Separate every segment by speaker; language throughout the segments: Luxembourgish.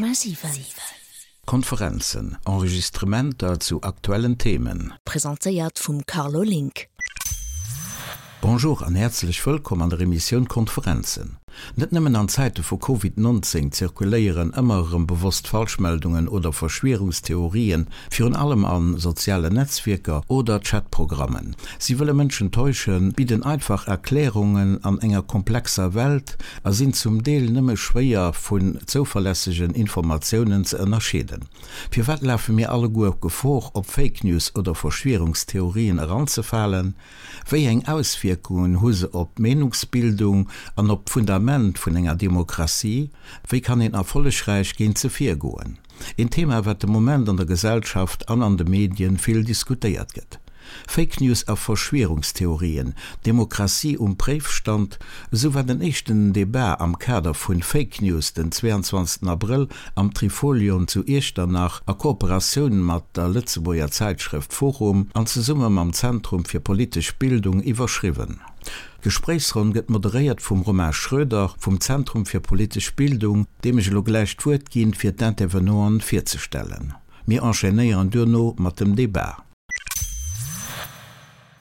Speaker 1: 100,7.
Speaker 2: Konferenzen, Enregistrementer zu aktuellen Themen.
Speaker 1: Presentéiert vum Carlo Link.
Speaker 2: Bonjour an häerzlech wëllkomm an der Emissioun Konferenzen. Net nëmmen an Zäite vu Covid 19 zirkuléieren ëmmer erëm bewosst Falschmeldungen oder Verschwierungstheorien, virun allem a sozialen Netzwierker oder Chatprogrammen. Si wëlle Mënschen täuschen, bidden einfach Erklärungen an enger komplexer Welt a sinn zum Deel nëmme schwéier vun zouverlässegen Informatiounen ze ënnerscheeden. Firwat lafe mir alleguer Gefor, op Fake News oder Verschwierungstheorien eranzefalen? Wéi eng Auswierkungen hu se op d'Meenungsbildung an op d'Fundament vun enger Demokratie? Wéi kann een erfollegräich géint se virgoen? Een Thema, wat de Moment an der Gesellschaft an an de Medien vill diskutéiert gëtt. Fake News a Verschwierungstheorien, Demokratie um Préifstand, esou war den éischten Debat am Kader vun Fake News den 22 Abrëll am Trifolion zu Iechternach a Kooperatioun mat der Lëtzebuerger Zäitschrëft Forum an zesumme mam Zentrum fir politesch Bildung iwwerschriwwen. D'Gespréichsronn gëtt moderéiert vum Romain Schroeder vum Zentrum fir politesch Bildung, deem ech elo gläich d'Wuert ginn, fir d'Intervenanten virzestellen. Mir enchaînéieren duerno mat dem Debat.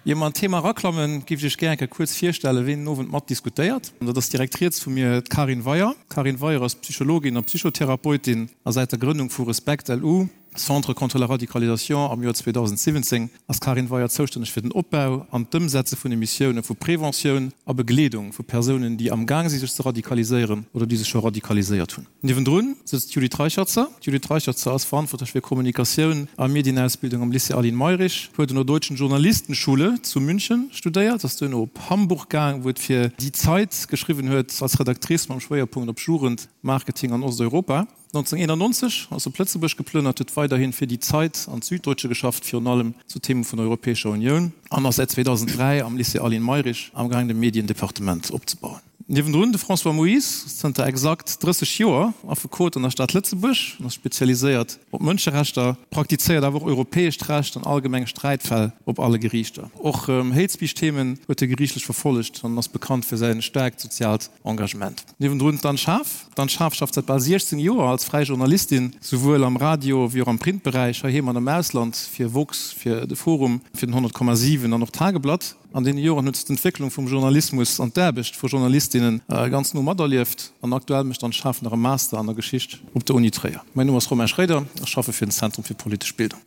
Speaker 3: Ier mer an d'Thema eraklammen, géif ech Iech gär eng Kéier kuerz virstellen, ween den Owend mat diskutéiert. Dat ass direkt riets vu mir d'Karin Weyer. D'Karin Weyer ass Psychologin a Psychotherapeutin a säit der Grënnung vu Respect LU, Centre contre la radicalisation am Joer 2017 ass d'Karin Weyer zoustänneg fir den Opbau an d'Ëmsetze vun de Missioune vu Preventioun a Begleedung vu Persounen, déi amgaang si sech ze radikaliséieren oder déi sech scho radikaliséiert hunn. Niewendrun sëtzt d'Judith Reicherzer. D'Judith Reicherzer ass verantwortlech fir Kommunikatioun a Medienausbildung am Lycée Aline Mayrisch, huet un der Deutschen Journalistenschule zu München studéiert, ass duerno op Hamburg gaang, wou et fir Die Zeit geschriwwen huet, als Redactrice mam Schwéierpunkt op Jugend, Marketing an Osteuropa. 1991 ass op Lëtzebuerg geplënnert, huet weiderhin fir Die Zeit an d'Süddeutsche geschafft, virun allem zu Theme vun der Europäescher Unioun, an ass säit 2003 am Lycée Aline Mayrisch amgaang de Mediendepartement opzebauen. Niewendrun de François Moyse, zënter exakt 30 Joer Affekot an der Stad Lëtzebuerg, en ass spezialiséiert op Mënscherechter, praktizéiert awer och europäescht Recht an allgemeng Sträitfäll op alle Geriichter. Och Hate Speech Themen huet e geriichtlech verfollegt an ass bekannt fir säin staarkt soziaalt Engagement. Niewendrun d'Anne Schaaf. D'Anne Schaaf schafft säit bal 16 Joer als fräi Journalistin, souwuel am Radio wéi och am Printberäich, heiheem an am Ausland, fir woxx, fir de Forum, fir den 100,7 an och d'Tageblatt. An deene Joren huet se d'Entwécklung vum Journalismus an d'Aarbecht vu Journalistinne ganz no materlieft an aktuell mécht d'Anne Schaaf nach e Master an der Geschicht op der Uni Tréier. Mäin Numm ass Romain Schroeder, ech schaffe fir den Zentrum fir politesch Bildung.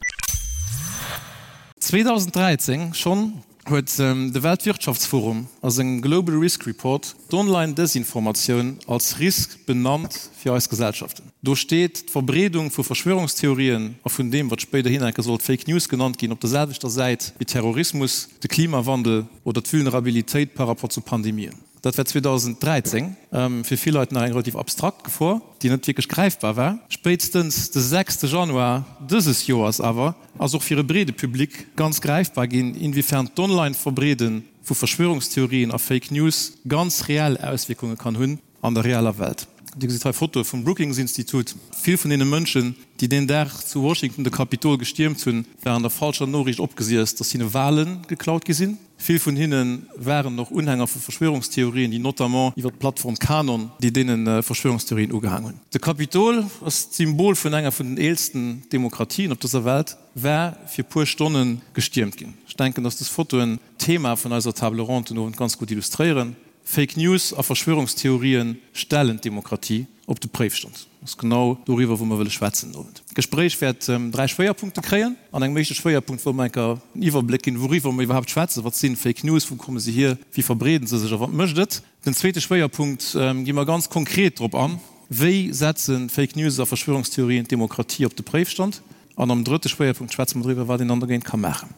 Speaker 3: 2013 schonn huet de Weltwirtschaftsforum a sengem Global Risk Report d'Online-Desinformatioun als Risk benannt fir eis Gesellschaften. Do steet d'Verbreedung vu Verschwörungstheorien a vun deem, wat spéiderhin enke sollt Fake News genannt ginn, op der selwechter Säit wéi Terrorismus, de Klimawandel oder d'Vulnerabilitéit par rapport zu Pandemien. Dat war 2013 fir vill Leit nach eng relativ abstrakt Gefor, déi net wierklech gräifbar war. Spéitstens de sechste Januar dëses Joers awer ass och fir e breede Public ganz gräifbar ginn, inwiefern d'Online-Verbreede vu Verschwörungstheorien a Fake News ganz reell Auswierkunge kann hunn an der realer Welt. Dir gesitt hei Fotoe vum Brookings-Institut. Vill vun deene Mënschen, déi deen Dag zu Washington de Kapitol gestiermt hunn, waren der falscher Noriicht opgesiess, datt hinne Wale geklaut gi sinn. Vill vun hinne waren och Unhänger vu Verschwörungstheorien, déi notamment iwwer d'Plattform Qanon, déi deene Verschwörungstheorien ugehaang hunn. De Kapitol ass d'Symbol vun enger vun den eelsten Demokratien op dëser Welt, war fir puer Stonne gestiermt ginn. Ech denken, datt dës Fotoen d'Thema vun eiser Table ronde den Owend ganz gutt illustréieren. Fake News a Verschwörungstheorien stellen d'Demokratie op de Préifstand. Dat ass genau doriwwer, wou mer wëlle schwätzen den Owend. D'Gespréich wäert 3 Schwéierpunkte kréien. An engem éischte Schwéierpunkt wëlle mer enker en Iwwerbléck ginn, wouriwwer mer iwwerhaapt schwätzen. Wat si Fake News, wou komme se hier, wéi verbreeden se sech a wat mécht et? Den zweete Schwéierpunkt gi mer ganz konkret drop an, wéi setze Fake News a Verschwörungstheorien d'Demokratie op de Préifstand? An am drëtte Schwéierpunkt schwätze mer driwwer, wat een dann dogéint ka maachen.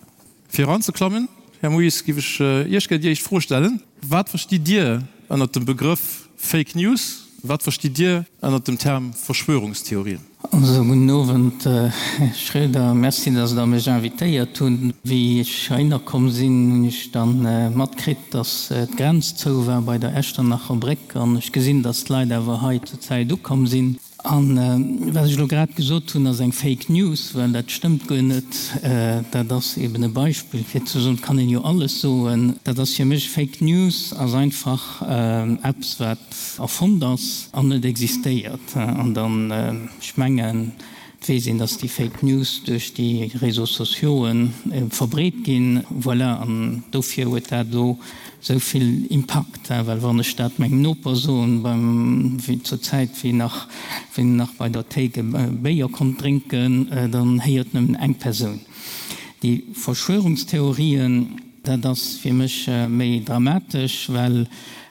Speaker 3: Fir eranzeklammen, Här Moes, géif ech Iech gär déi éischt Fro stellen, Wat verstitt Dir ënnert dem Begrëff Fake News? Wat verstitt Dir ënnert dem Term Verschwörungstheorien?
Speaker 4: Also, gudden Owend, Här Schroeder. Merci, dass Der mech invitéiert hutt. Wéi ech heihinner komm sinn, hunn ech da matkritt, dass d'Grenz zou war bei der Echternacher Bréck. An ech gesinn, dass d'Leit awer hei zur Zäit ukomm sinn. An wat ech elo grad gesot hunn, ass eng Fake News, well dat stëmmt guer net. Dat ass eben e Beispill fir ze soen, et kann een jo alles soen. Dat ass fir mech, Fake News ass einfach eppes wat erfonnt ass an net existéiert. An dann, ech mengen, Et weess een, dass déi Fake News duerch déi Réseaux sociauxen verbreet ginn. Voilà, an dofir huet dat elo esou vill Impakt, well wann ech dat mengem Noper soen, beim, wéi zur Zäit, wéi nach, wéi en nach bei der Théik e Béier konnt drénken, dann héiert nëmmen eng Persoun. Déi Verschwörungstheorien, dat ass fir mech méi dramatesch, well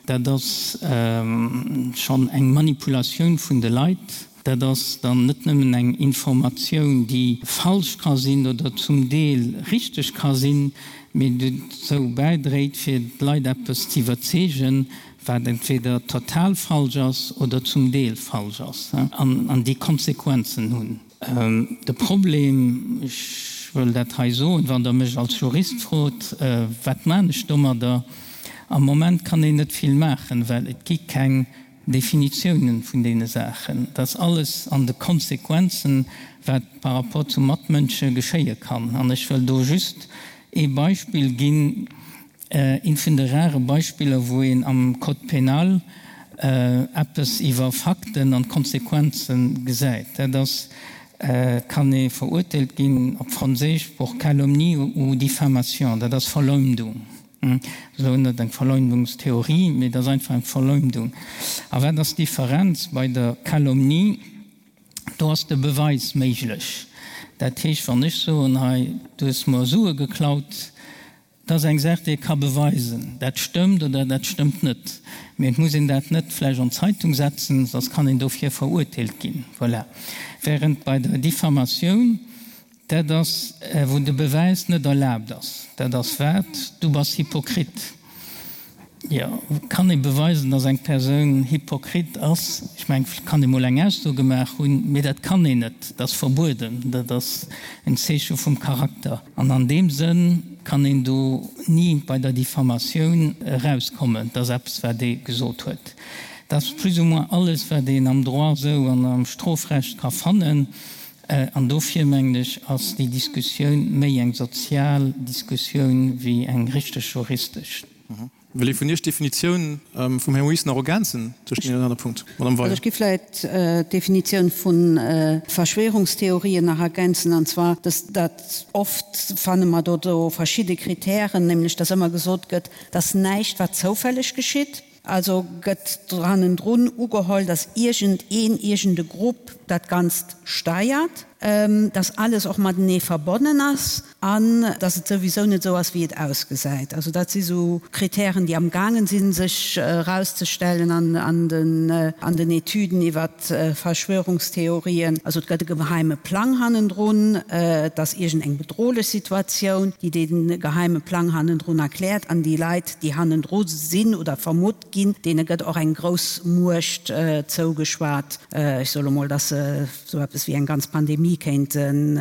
Speaker 4: dat ass schonn eng Manipulatioun vun de Leit. Dat ass dann net nëmmen eng Informatioun, déi falsch ka sinn oder zum Deel richteg ka sinn, mee dozou bäidréit, fir d'Leit eppes ze iwwerzeegen, wat entweder total falsch ass oder zum Deel falsch ass an déi Konsequenzen hunn. De Problem, ech wëll dat hei soen, wann Der mech als Jurist frot, wat maan ech domadder? Am Moment kann een net vill maachen, well et gi keng Definitiounen vun deene Saachen, dass alles an de Konsequenzen, wat par rapport zu Matmënsche geschéie kann. An ech wëll do just ee Beispill ginn, eent vun de rare Beispiller, wou een am Code pénal eppes iwwer Fakten an Konsequenze gesäit. Dat ass, et kann ee verurteelt ginn, op Franséisch, pour calomnie ou diffamation, dat ass Verleumdung. Esou net eng Verleumdungstheorie, mee et ass einfach eng Verleumdung. A wat ass d'Differenz bei der Calomnie? Do ass de Beweis méiglech. Dat heescht, wann ech soen, hei, du hues mer Sue geklaut, dat ass eng Saach, déi ee ka beweisen, dat stëmmt oder dat stëmmt net. Mee et muss een dat net vläicht an d'Zeitung setzen, soss kann een dofir verurteelt ginn. Voilà. Während bei der Diffamatioun, Dat ass, wou de Bewäis net erlaabt ass. Dat ass wat? Du bass Hypokrit. Jo, kann ee beweisen, datt eng Persoun Hypokrit ass? Ech mengen, et kann ee mol eng Ausso gemaach hunn, mee dat kann een net. Dat ass verbueden. Dat ass en Zeeche vum Charakter. An an deem Sënn kann een do ni bei der Diffamatioun erauskommen. Dat ass eppes, wat ee gesot huet. Dat ass plus ou moins alles, wat een am Droit esou an am Strofrecht ka fannen. An dofir, mengen ech, ass déi Diskussioun méi eng sozial Diskussioun wéi eng richteg juristesch.
Speaker 3: Wëll ee vun Iech d'Definitioun vum Här Moes nach ergänzen tëscht deenen anere Punkt? Madame Weier.
Speaker 5: Also ech giff vläicht d'Definitioun vu Verschwörungstheorien nach ergänzen, an zwar, dass dat oft fanne mer do do verschidde Kritären, nämlech dass ëmmer gesot gëtt, dass näischt wat zoufälleg geschitt, Also gëtt hannendrun ugeholl, datt iergend een, iergend e Grupp dat Ganzt steiert, datt alles och matenee verbonnen ass an datt et souwisou net esou ass, wéi et ausgesäit. Also dat si sou Kritären, déi amgaangen sinn, sech erauszestellen an den Etüden iwwer Verschwörungstheorien. Also et gëtt e geheime Plang hannendrun, et ass iergend eng bedrohlech Situatioun, déi dee geheime Plang hannendrun erkläert an déi Leit, déi hannendru sinn oder vermutt ginn, deene gëtt och eng grouss Muecht zougeschwat. Ech soe lo mol, datt se esou eppes wéi eng ganz Pandemie kéinten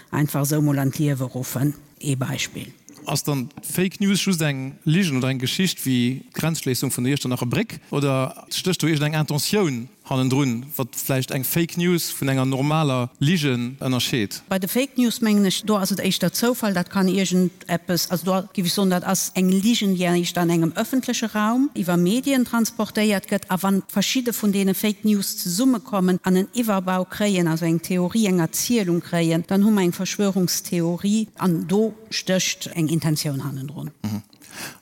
Speaker 5: einfach esou mol an d'Liewe ruffen. Ee Beispill.
Speaker 3: Ass dann d'Fake News just eng Ligen oder eng Geschicht wéi d'Grenzschléissung vun der Iechternacher Bréck oder stécht do iergendeng Intentioun hannendrun, wat vläicht eng Fake News vun enger normaler Ligen ënnerscheet?
Speaker 5: Bei de Fake News mengen ech, do ass et éischter Zoufall, dat kann iergend eppes, also do géif ech soen, dat ass eng Ligen, déi éischter an engem ëffentleche Raum iwwer Medien transportéiert gëtt. A wann verschidde vun deene Fake News zesummekommen an en Iwwerbau kréien, also eng Theorie, eng Erzielung kréien, dann hu mer eng Verschwörungstheorie an do stécht eng Intentioun hannendrun.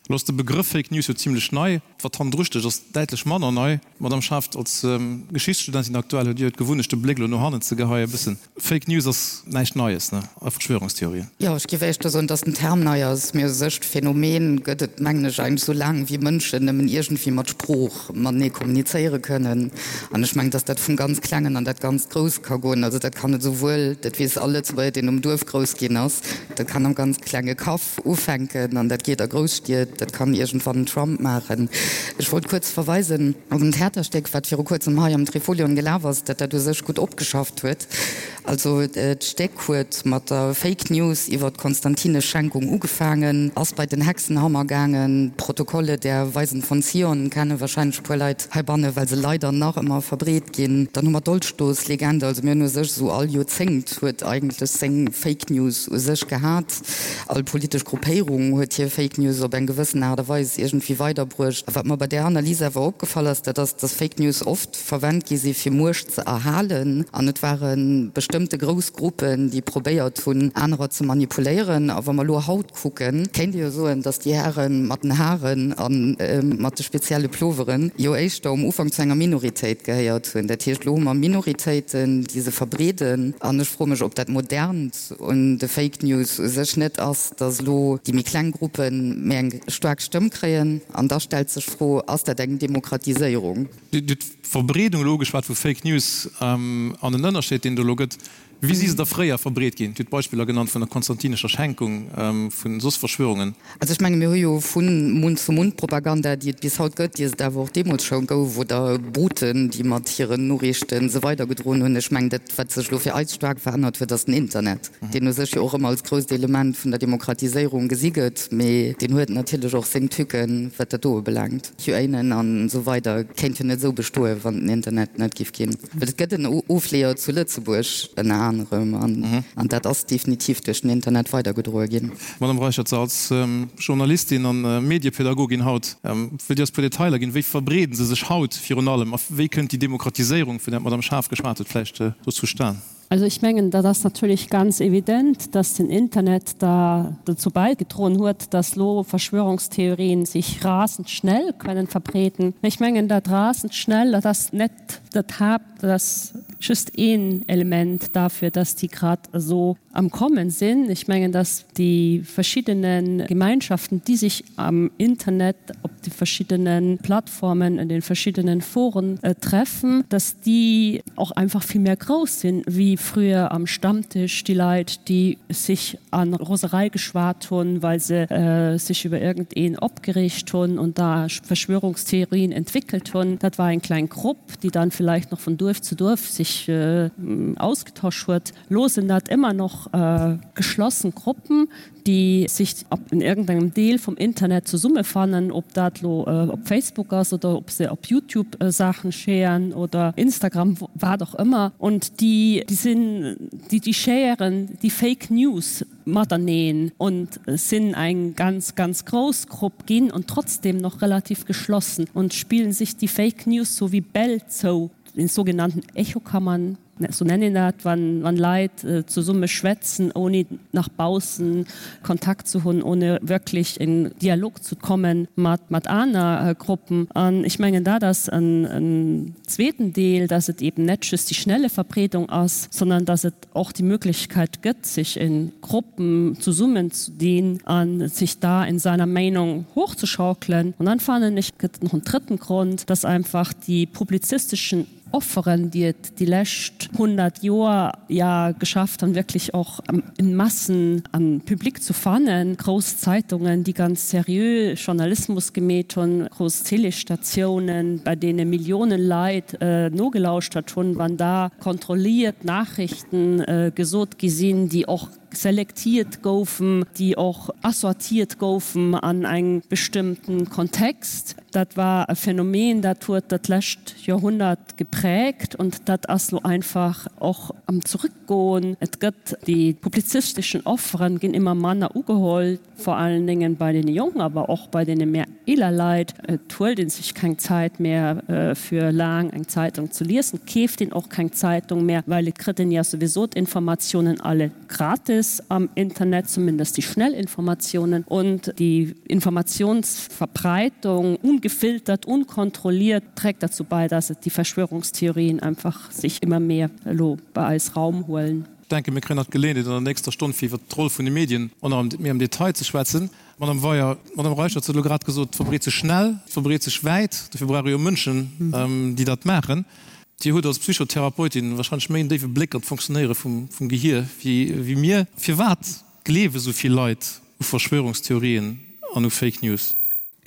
Speaker 3: Elo ass de Begrëff Fake News jo zimlech nei. Wat hannendru stécht, ass däitlech manner nei. Madamm Schaft, als Geschichtsstudentin aktuell huet Dir jo d'Gewunnecht, de Bléck elo no hannen ze geheien e bëssen. Fake News ass näischt Neies, ne? A Verschwörungstheorien.
Speaker 6: Jo, ech géif éischter soen, dass den Term nei ass. Mee u sech d'Phänomen gëtt et, mengen ech, eigentlech sou laang wéi Mënschen nëmmen iergendwéi mat Sprooch matenee kommunizéiere kënnen. An ech mengen, dass dat vum ganz Klengen an dat ganz Grousst ka goen. Also dat kann et esouwuel, dat weess all Lëtzebuerger, deen um Duerf grouss ginn ass, dat kann am ganz klenge Kaff ufänken an dat geet a Grousstied. Dat kann iergendwann den Trump maachen. Ech wollt kuerz verweisen op en Theaterstéck, wat viru kuerzem hei am Trifolion gelaf ass, dat dat u sech gutt opgeschafft huet. Also d'Stéck huet mat der Fake News iwwer d'Konstantinesch Schenkung ugefaangen, ass bei den Hexenhammer gaangen. D'Protokolle der Weisen von Zion kenne wahrscheinlech e puer Leit heibanne, well se leider nach ëmmer verbreet ginn. Dann hu mer d'Dolchstoßlegende. Also mir hunn u sech esou all Joerzéngt huet eigentlech seng Fake News u sech gehat. All politesch Gruppéierung huet hir Fake News op eng gewëssen Aart a Weis iergendwéi weiderbruecht. A wat mer bei där Analys awer opgefall ass, dat ass, dass Fake News oft verwennt gi si fir Muecht ze erhalen. An et ware bestëmmte grouss Gruppen, déi probéiert hunn, anerer ze manipuléieren. A wa mer elo haut kucken, kéint ee jo soen, dass déi Häre mat den Haren a mat de spezielle Ploveren jo éischter um Ufank zu enger Minoritéit gehéiert hunn. Dat heescht, elo hu mer Minoritéiten, déi se verbreeden. An ech froe mech, ob dat Modernt un de Fake News u sech net ass, dass elo déi méi kleng Gruppe méi eng staark Stëmm kréien. An da stellt sech d'Fro, Ass dat eng Demokratiséierung?
Speaker 3: Dir hutt d'Verbreedung elo ugeschwat vu Fake News an den Ënnerscheed, deen et elo gëtt. Wéi si se da fréier verbreet ginn? Dir hutt Beispiller genannt vun der konstantinescher Schenkung, vu soss Verschwörungen.
Speaker 6: Also ech menge mir hu jo vu Mund-zu-Mund-Propaganda, déi et bis haut gëtt, déi et awer och deemools scho gouf, oder Boten, déi mat hiren Noriichte se weidergedroen hunn. Ech mengen, dat wat sech elo fir eis staark verännert huet, ass den Internet, deen u sech jo och ëmmer als grousst Element vun der Demokratiséierung gesi gëtt, mee deen huet natierlech och seng Tücken, wat dat do ubelaangt. QAnon an esou weider kéint jo net esou bestoen, wann den Internet net giff ginn. Well et gëtt en Ofleeër zu Lëtzebuerg ënner anerem an dat ass definitiv duerch den Internet weidergedroe ginn.
Speaker 3: Madame Reichert, als Journalistin an Mediepädagogin haut, wëllt Dir eis puer Detailer ginn, wéi verbreeden se sech haut virun allem a wéi kënnt déi Demokratiséierung, vun där d'Madame Schaaf geschwat huet, vläicht do zustan?
Speaker 7: Also ich mengen, dat ass natierlech ganz evident, dass den Internet da dozou bäigedroen huet, dass lo Verschwörungstheorien sich rasend schnell können verbreeden. Mä ech mengen, dat rasend schnell, dat ass net dat Haapt, dat ass just een Element dafür, dass déi grad esou am Kommen sinn. Ech mengen, dass déi verschiddene Gemeinschaften, déi sech am Internet op de verschiddene Plattformen, an de verschiddenen Foren treffen, dass déi och einfach vill méi grouss sinn, wéi früher am Stammtisch déi Leit, déi sech a Roserei geschwat hunn, well se sech iwwer iergendeen opgereegt hunn und da Verschwörungstheorien entwickelt hunn. Dat war eng kleng Grupp, déi dann vielleicht noch von Duerf zu Duerf sich ausgetosch huet. Lo sinn dat ëmmer noch geschlossen Gruppen, déi sich in irgendengem Deel vum Internet zesummefannen, ob dat lo op Facebook ass oder ob se op YouTube Saachen sharen oder Instagram, wat och ëmmer. Und déi sinn, déi sharen déi Fake News mateneen und sinn eng ganz, ganz grouss Grupp ginn und trotzdem noch relativ geschlossen und spillen sich déi Fake News sou wéi Bäll zou, in sogenannten Echokammern. Sou nennt een dat, wann Leit zesumme schwätzen, ouni nach baussen Kontakt ze hunn, ohne wirklich in Dialog ze kommen mat aner Gruppen. An ech mengen, dat ass en zweeten Deel, dass et eben net just déi schnelle Verbreedung ass, sondern dass et och déi Möglichkeit gëtt, sech in Gruppen zesummen ze dinn a sech da in seiner Meinung hochzuschaukelen. Und dann fannen ech, gëtt et nach en drëtten Grond, dass einfach déi publizistischen Offeren, déi et déi lescht 100 Joer ja geschafft han, wierklech och in Massen an Public zu fannen, grouss Zeitungen, déi ganz seriö Journalismus gemeet hunn, grouss Télésstatiounen, bei deene Milliounen Leit nogelauschtert hunn, wann da kontrolliert Nachrichten gesot gi sinn, déi och selektiert goufen, déi och assortiert goufen an engem bestëmmten Kontext. Dat war e Phänomen, dat huet dat lescht Joerhonnert geprägt und dat ass lo einfach och am Zurückgoen. Et gëtt, déi publizisteschen Offeren ginn ëmmer manner ugeholl. Vor allen Dingen bei deene Jonken, awer och bei deene méi eeler Leit. Et huelt ee sech keng Zäit méi fir laang eng Zeitung ze liesen, et keeft een och keng Zeitung méi, well et kritt een ja souwisou d'Informatiounen alle gratis am Internet, zumindest déi schnell Informatiounen. Und déi Informationsverbreitung, ungefiltert, unkontrolliert, trägt dazu bei, dass et déi Verschwörungstheorien einfach sich immer mehr elo bei eis Raum huelen.
Speaker 3: Ech denken, mir kréien nach d'Geleeënheet an der nächster Stonn, fir iwwert d'Roll vun de Medien och nach méi am Detail ze schwätzen. Madame Weyer, d'Madame Reicherts huet elo grad gesot, et verbreet sech schnell, et verbreet sech wäit. Dofir brauch ee jo Mënschen, déi dat maachen. Dir hutt als Psychotherapeutin wahrscheinlech méi en déiwe Bléck an d'Fonctionnéiere vum Gehier wéi mir. Firwat gleewe sou vill Leit u Verschwörungstheorien an u Fake News?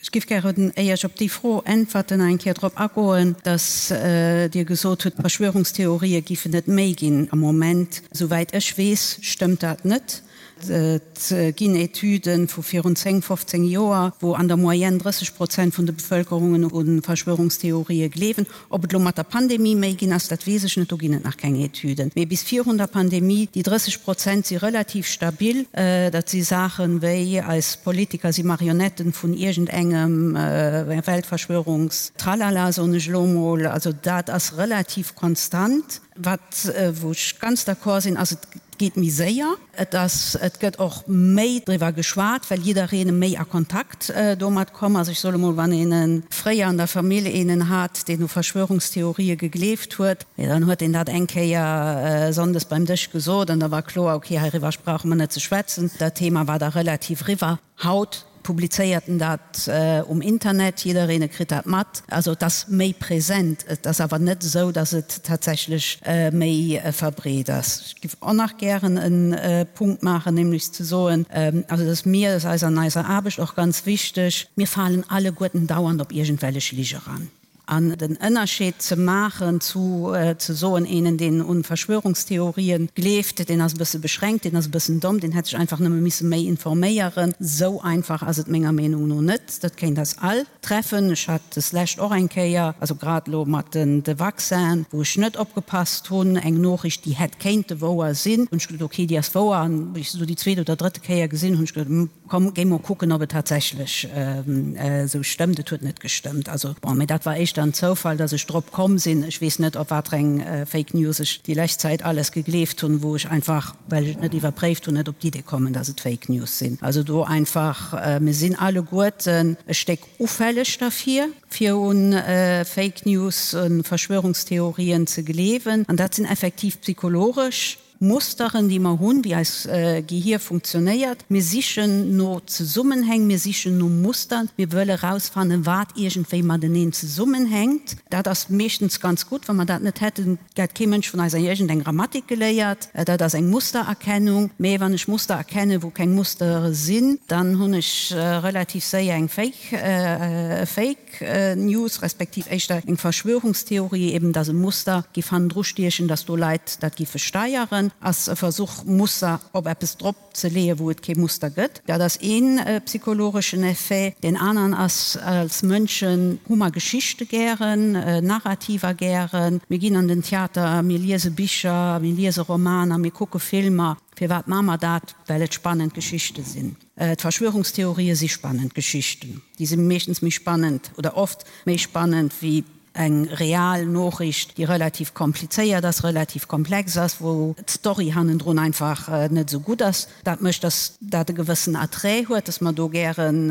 Speaker 5: Ech géif gären, éier ech op déi Fro äntwerten, nach eng Kéier drop agoen, dass Dir gesot hutt, Verschwörungstheorië giffen et méi ginn am Moment. Souwäit ech weess, stëmmt dat net. Et ginn Etüde vu virun 10, 15 Joer, wou an der Moyenne 30 Prozent vun de Bevëlkerungen u Verschwörungstheorië gleewen. Ob et elo mat der Pandemie méi ginn ass, dat weess ech net, do ginn et nach keng Etüden. Mee bis virun der Pandemie, déi 30 Prozent si relativ stabil. Dat si Saachen wéi, eis Politiker si Marionetten vun iergendengem Weltverschwörungstralala, soen ech elo mol. Also dat ass relativ konstant. Wat, wou ech ganz d'accord sinn, ass, et geet méi séier. Et ass, et gëtt och méi driwwer geschwat, well jiddereen méi a Kontakt domat komm ass. Ech soe mol, wann een fréier an der Famill eenen hat, deen u Verschwörungstheorië gegleeft huet, jo dann huet deen dat eng Kéier sonndes beim Dësch gesot an da war kloer, okay, heiriwwer brauche mer net ze schwätzen. Dat Thema war da relativ eriwwer. Haut publizéiert en dat um Internet, jiddereen kritt dat mat. Also et ass méi present, et ass awer net esou, datt et tatsächlech méi verbreet ass. Ech géif och nach gären e Punkt maachen, nämlech ze soen, also et ass mir, et ass eis an eiser Aarbecht och ganz wichteg, mir falen alleguerten dauernd op iergendwellech Lige ran. An den Ënnerscheed ze maachen zu ze soen, eenen deen un Verschwörungstheorien gleeft, deen ass e bësse beschränkt, deen ass e bëssen domm, deen hätt sech einfach nëmme misse méi informéieren, sou einfach ass et menger Meenung no net. Dat kéint eis all treffen. Ech hat deslescht och eng Kéier, also grad elo mat den de Vaccinen, wou ech net opgepasst hunn, eng Noochricht déi hätt kéinte wouer sinn, hunn ech gesot, ok, déi ass wouer, an wéi ech se du déi zweet oder drëtte Kéier gesinn hunn, hunn ech gesot, Komm, géi mol kucken, ob et tatsächlech esou stëmmt. Et huet net gestëmmt. Also, bon, mee dat war éischter en Zoufall, dass ech drop komm sinn. Ech weess net, op watereng Fake News ech déi lescht Zäit alles gegleeft hunn, wou ech einfach, well ech et net iwwerpréift hunn, net op d'Idee kommen, dass et Fake News sinn. Also do einfach, mir sinn alleguerten e Stéck ufälleg derfir, fir un Fake News, u Verschwörungstheorien ze gleewen. An dat sinn effektiv psychologesch Musteren, déi mer hunn, wéi eis Gehier funktionéiert. Mir sichen no Zesummenhäng, mir sichen no Mustern, mir wëlle rausfannen, wat iergendwéi mateneen zesummenhänkt. Dat ass meeschtens ganz gutt. Wa mer dat net hätten, hätt kee Mënsch vun eis iergendeng Grammatik geléiert. Dat ass eng Mustererkennung. Mee wann ech Muster erkennen, wou keng Mustere sinn, dann hunn ech relativ séier eng Fake, e Fake. News, respektiv éischter eng Verschwörungstheorie, eben dass e Muster giff hannendru stiechen, dass do Leit dat giffe steieren, ass e Versuch Muster op eppes drop ze leeën, wou et kee Muster gëtt. Dat ass ee psychologeschen Effet. Deen aneren ass, als Mënschen hu mer Geschichte gären, Narrativer gären. Mir ginn an den Theater, mir liese Bicher, mir liese Romaner, mir kucke Filmer. Firwat maache mer dat? Well et spannend Geschichte sinn. D'Verschwörungstheorië si spannend Geschichten. Déi si meeschtens méi spannend oder oft méi spannend wéi eng real Noochricht, déi relativ komplizéiert ass, relativ komplex ass, wou d'Story hannendrun einfach net esou gutt ass. Dat mécht, datt dat e gewëssen Attrait huet, datt mer do gären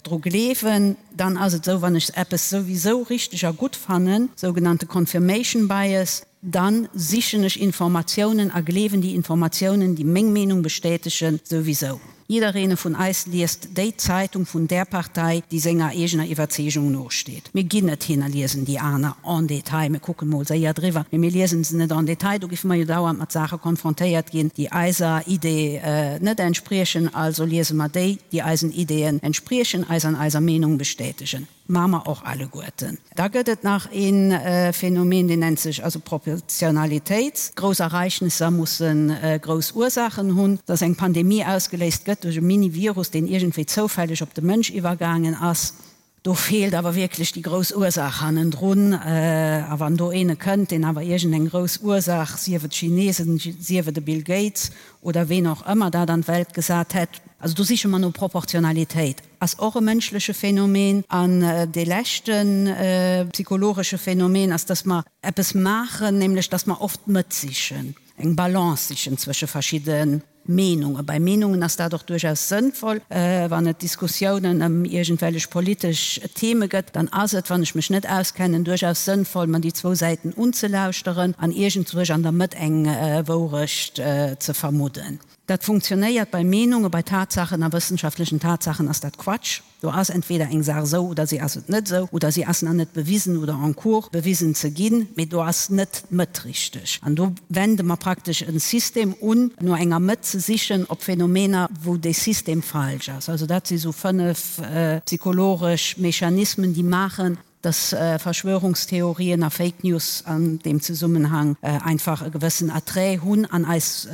Speaker 5: dru gleewen. Dann ass et esou, wann ech eppes souwisou richteg a gutt fannen, sougenannte Confirmation Bias, Dann sichen ech Informatiounen a gleewen déi Informatiounen, déi meng Meenung bestätegen, souwisou. Jiddereene vun eis liest déi Zeitung vun där Partei, déi senger eegener Iwwerzeegung nosteet. Mir ginn net hin a liesen déi aner en détail. Mir kucken mol séier driwwer, mee mir liesen se net en détail. Do giffe mer jo dauernd mat Saache konfrontéiert ginn, déi eiser Idee net entspriechen. Also liese mer déi, déi eisen Ideeën entspriechen, eis an eiser Meenung bestätegen. Maache mer och alleguerten. Da gëtt et nach ee Phänomen, deen nennt sech also Proportionalitéit. Grouss Ereignisser musse grouss Ursaachen hunn. Dass eng Pandemie ausgeléist gëtt duerch e Mini-Virus, deen iergendwéi zoufälleg op de Mënsch iwwergaangen ass, do feelt awer wierklech déi grouss Ursaach hannendrun. A wann do eene kënnt, deen awer iergendeng grouss Ursaach, sief et d'Chinesen, sief et e Bill Gates oder ween och ëmmer dat an d'Welt gesat hätt, also do siche mer no Proportionalitéit. Ass och e mënschleche Phänomen. An dee leschte psychologesche Phänomen ass, dass mer eppes maachen, nämlech dass mer oft d'Mëtt sichen, eng Balance sichen zwësche verschidde Meenungen. Bei Meenungen ass dat och duerchaus sënnvoll. Wann et Diskussiounen ëm iergendwellech politesch Theme gëtt, dann ass et, wann ech mech net auskennen, duerchaus sënnvoll, mer déi zwou Säiten unzelauschteren an iergendzwousch an der Mëtt eng Wourecht ze vermudden. Dat funktionéiert bei Meenungen, bei Tatsachen a wëssenschaftlechen Tatsachen ass dat Quatsch. Do ass entweder eng Saach esou oder si ass et net esou oder si ass nach net bewisen oder en cours bewisen ze ginn, mee do ass net d'Mëtt richteg. An do wende mer praktesch e System un, no enger Mëtt ze sichen op Phänomener, wou dee System falsch ass. Also dat si sou 5 psychologesch Mechanismen, déi maachen, dass Verschwörungstheorien a Fake News an deem Zesummenhang einfach e gewëssen Attrait hunn an eis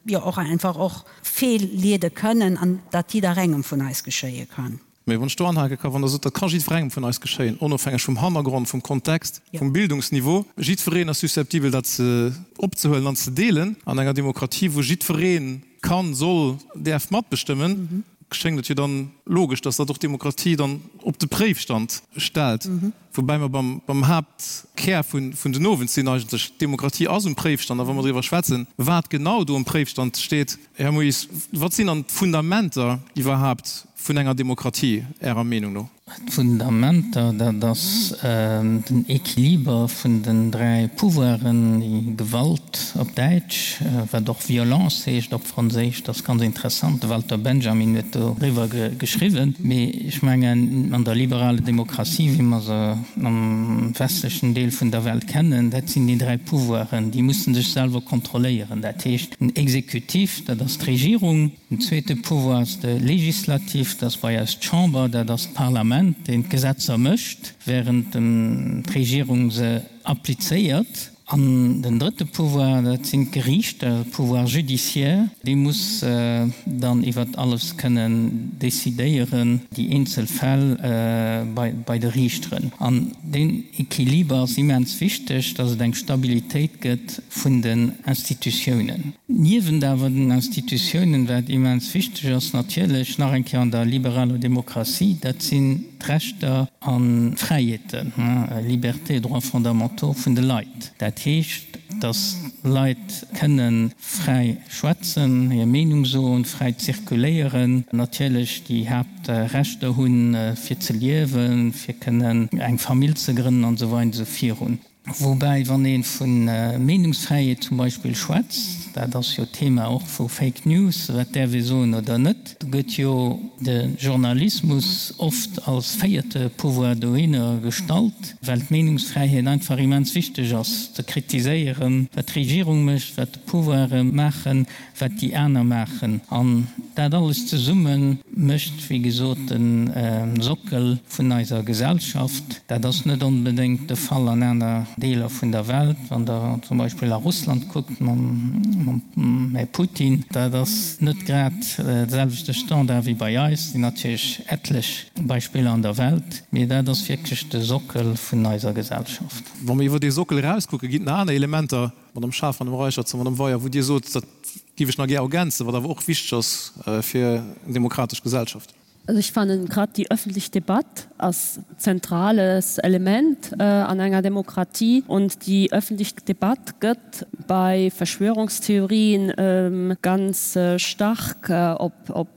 Speaker 5: jo och einfach och feelleede kënnen an dat jidderengem vun eis geschéie kann.
Speaker 3: Mee wann ech do anhake ka, wann Der sot, dat ka jiddwerengem vun eis geschéien, onofhängeg vum Hannergrond, vum Kontext, vum Bildungsniveau, jiddwereen ass susceptibel dat ze opzehuelen an ze deelen an enger Demokratie, wou jiddweree kann, soll, däerf matbestëmmen, schéngt et jo dann logesch, dass dat och d'Demokratie dann op de Préifstand stellt. Woubäi mer beim, beim Haaptkär vun, vun den Owend sinn eigentlech. D'Demokratie ass um Préifstand. A wa mer driwwer schwätzen, wat genau do um Préifstand steet, Här Moes, wat sinn dann d'Fundamenter iwwerhaapt vun enger Demokratie Ärer Meenung no?
Speaker 4: D'Fundamenter, dat ass den Equiliber vun den 3 Pouvoiren, déi Gewalt op Däitsch, wat och Violence heescht op Franséisch, dat ass ganz interessant, de Walter Benjamin huet doriwwer geschriwwen. Mee ech mengen, an der liberaler Demokratie, wéi mer se am westlechen Deel vun der Welt kennen, dat sinn déi 3 Pouvoiren, déi musse sech selwer kontrolléieren. Dat heescht, den Exekutif, dat ass d'Regierung, Den zweete Pouvoir ass de Legislatif, dat ass bei eis d'Chamber, dat ass d'Parlament, deen d'Gesetzer mécht, während d'Regierung se applizéiert. An den drëtte Pouvoir, dat sinn d'Geriichter, de Pouvoir judiciaire, dee muss dann iwwert alles kënnen decidéieren, déi eenzel Fäll bei de Riichteren. An deen Equiliber ass immens wichteg, dass et eng Stabilitéit gëtt vun den Institutiounen. Niewent awer den Institutiounen, wat immens wichteg ass natierlech, nach eng Kéier an der liberaler Demokratie, dat sinn d'Rechter an d'Fräiheeten, Libertés et droits fondamentaux, vun de Leit. Dat heescht, dass d'Leit kënne fräi schwätzen, hir Meenung soen, fräi zirkuléieren, natierlech déi Haaptrechter hunn, fir ze liewen, fir kënnen eng Famill ze grënnen an esou weider an esou virun. Woubäi, wann ee vu Meenungsfräiheet zum Beispill schwätzt, dat ass jo d'Thema och vu Fake News, wat däerf ee soen oder net, do gëtt jo de Journalismus oft als véierte Pouvoir dohinner gestallt, well d'Meenungsfräiheet einfach immens wichteg ass, ze kritiséieren, wat d'Regierung mécht, wat de Pouvoire maachen, wat déi aner maachen. An dat alles zesumme mécht, wéi gesot, de Sockel vun eiser Gesellschaft. Dat ass net onbedéngt de Fall an aner Deeler vun der Welt. Wann Der zum Beispill a Russland kuckt mam Här Putin, dat ass net grad de selwechte Standard wéi bei eis. Et sinn natierlech etlech Beispiller an der Welt, mee dat ass wierklech de Sockel vun eiser Gesellschaft.
Speaker 3: Wa mer iwwer dee Sockel erauskucken, ginn et nach aner Elementer, Madame Schaaf, Madame Reicherts a Madame Weyer, wou Dir sot, dat géif ech nach gär ergänzen, wat awer och wichteg ass fir eng demokratesch Gesellschaft.
Speaker 7: Also ech fannen grad déi öffentlich Debatt ass zentrales Element an enger Demokratie und déi öffentlich Debatt gëtt bei Verschwörungstheorien ganz stark op op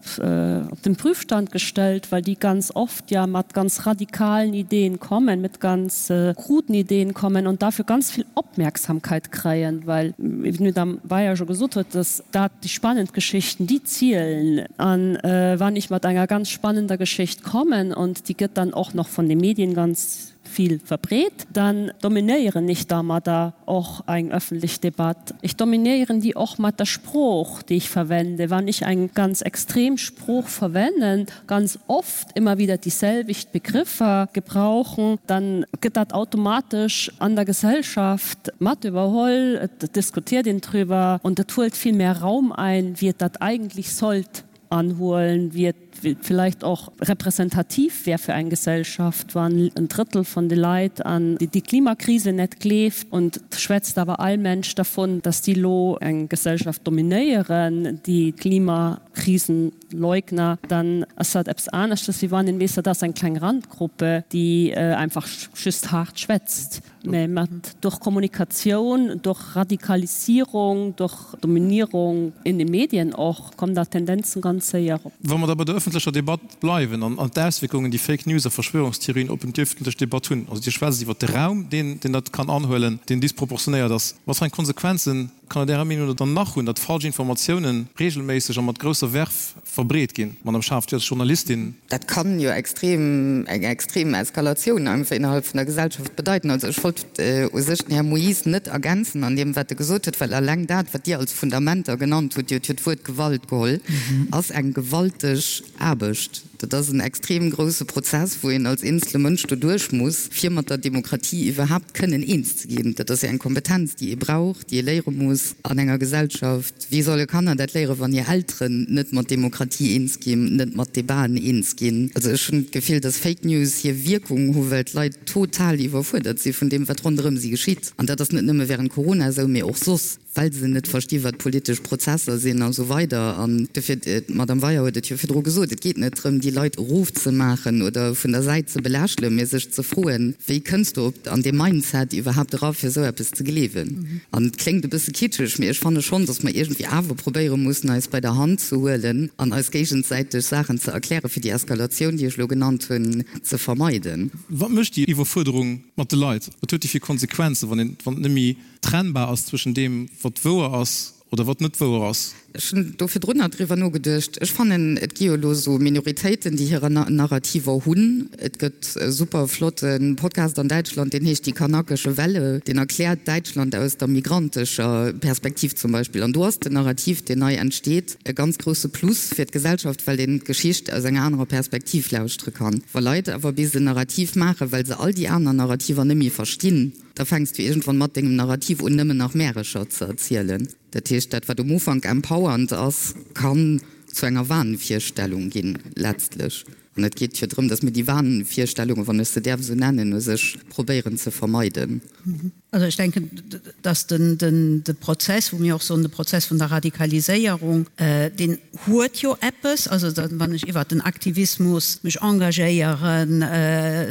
Speaker 7: den Prüfstand gestellt, well déi ganz oft ja mat ganz radikalen Ideen kommen, mit ganz kruden Ideen kommen und dafür ganz vill Opmerksamkeit kréien, well, wéi d'Madame Beyer scho gesot huet, dass dat déi spannend Geschichten, déi zielen. An wann ech mat enger ganz spannender Geschicht kommen und déi gëtt dann och nach von de Medien ganz vill verbreet, dann dominéieren ech dermadder och eng öffentlech Debatt. Ech dominéieren déi och mat der Sprooch, déi ech verwende. Wann ech eng ganz extrem Sprooch verwennen, ganz oft immer wieder déi selwecht Begriffer gebrauchen, dann gëtt dat automatesch an der Gesellschaft mat iwwerholl, et diskutiert een drüber und et huelt vill mehr Raum ein, wéi et dat eigentlich sollt anhuelen, wéi et vielleicht och repräsentativ wär fir eng Gesellschaft, wann en Drëttel von de Leit an déi Klimakrise net gleeft und schwätzt awer all Mensch dervun, dass déi lo eng Gesellschaft dominéieren, déi Klimakrisenleugner, dann ass dat eppes aneschtes, wéi wann een weess, dat ass eng kleng Randgruppe, déi einfach just haart schwätzt. Mä mat durch Kommunikatioun, durch Radikalisierung, durch Dominierung in den Medien och, kommen da Tendenzen ganz séier op.
Speaker 3: Wa mer da bei der öffentlecher Debatt bleiwen an d'Auswierkungen, déi Fake News a Verschwörungstheorien op d'öffentlech Debatt hunn, also Dir schwätzt iwwert de Raum, deen dat kann anhuelen, deen disproportionéiert ass, wat fir eng Konsequenzen? Kann et Ärer Meenung no dann nach hunn, datt falsch Informatiounen regelméisseg a mat grousser Verve verbreet ginn? Madame Schaaf, Dir als Journalistin.
Speaker 6: Dat kann jo extrem, eng extrem Eskalatioun einfach innerhalb vun der Gesellschaft bedeiten. Also ech wollt u sech den Här Moyse net ergänzen an deem wat e gesot huet, well alleng dat wat Dir als Fundamenter genannt hutt, Dir hutt jo d'Wuert Gewalt geholl, ass eng gewalteg Aarbecht. Dat ass en extrem grousse Prozess, wou een als eenzele Mënsch doduerch muss, fir mat der Demokratie iwwerhaapt kënnen eens ze ginn. Dat ass jo eng Kompetenz, déi ee brauch, déi ee léiere muss an enger Gesellschaft. Wéi solle Kanner dat léieren, wann hir Elteren net mat Demokratie eens ginn, net mat Debaten eens ginn? Also ech hunn d'Gefill, dass Fake News hir Wierkung hu well d'Leit total iwwerfuerdert si vun deem, wat ronderëm si geschitt. An dat ass net nëmme während Corona esou, mee och soss. Well se net versti wat politesch Prozesser sinn a sou weider. An dofir, d'Madame Weier huet et jo virdru gesot, et geet net drëm, déi Leit erofzemaachen oder vun der Säit ze belächelen, mee sech ze froen, wéi kënns du op an dee Mindset iwwerhaapt era fir esou eppes ze gleewen? An et kléngt e bësse kitscheg, mee ech fanne schonn, datt mer iergendwéi awer probéiere mussen, eis bei der Hand ze huelen an eis géigesäiteg Saachen ze erklären, fir déi Eskalatioun, déi ech elo genannt hunn, ze vermeiden.
Speaker 3: Wat mécht déi Iwwerfuerderung mat de Leit? Wat huet déi fir Konsequenzen, wann een, wann et net méi trennbar ass zwëschen deem, wat wouer ass oder wat net wouer ass.
Speaker 6: Ech hunn do virdrunner driwwer nogeduecht. Ech fannen, et gi jo elo esou Minoritéiten, déi hirer Narrativer hunn. Et gëtt e super flotte Podcast an Däitschland, deen heescht Die kanakische Welle. Deen erkläert Däitschland aus der migrantescher Perspektiv zum Beispill. An do ass den Narrativ, deen nei entsteet, e ganz grousse Plus fir d'Gesellschaft, well een d'Geschicht aus enger anerer Perspektiv lauschtere kann. Wa Leit awer bis en Narrativ maachen, well se all déi aner Narrativer net méi verstinn, Da fänks du iergendwann mat dengem Narrativ un nëmmen nach Märecher ze erzielen. Dat heescht, dat wat um Ufank empowernd ass, kann zu enger Wahnvirstellung ginn, letztlech. An et geet jo drëm, datt mir déi Wahnvirstellungen, wann ech se däerf esou nennen, u sech probéieren ze vermeiden.
Speaker 5: Also ech denken, datt de Prozess, wou mir och soen, de Prozess vun der Radikaliséierung, deen huet jo eppes, also wann ech iwwert den Aktivismus mech engagéieren,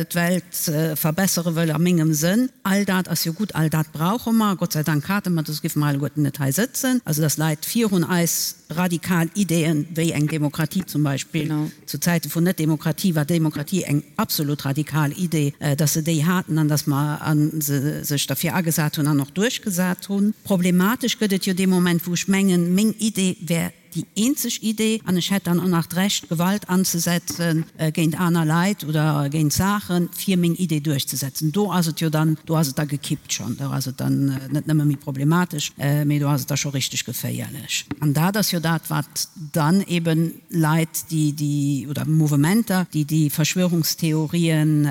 Speaker 5: d'Welt verbessere wëll a mengem Sënn, all dat ass jo gutt, all dat brauche mer, Gott sei Dank hate mer dat, soss géife mer alleguerten net hei sëtzen, also datt Leit virun eis radikal Ideeën, wéi eng Demokratie zum Beispill, zu Zäite vun Net-Demokratie war Demokratie eng absolut radikal Idee, datt se déi haten an datt mer se sech derfir agesat hunn an och duerchgesat hunn. Problematesch gëtt et jo dee Moment, wou ech mengen, meng Idee wär déi eenzeg Idee an ech hätt dann och nach d'Recht, Gewalt anzesetze géint aner Leit oder géint Saachen, fir meng Idee duerchzesetzen. Do ass et jo dann, do ass et da gekippt schonn. Do ass et dann net nëmme méi problematesch, mee do ass et da scho richteg geféierlech. An dat ass jo dat, wat dann eben Leit, déi déi, oder Mouvementer, déi déi Verschwörungstheorien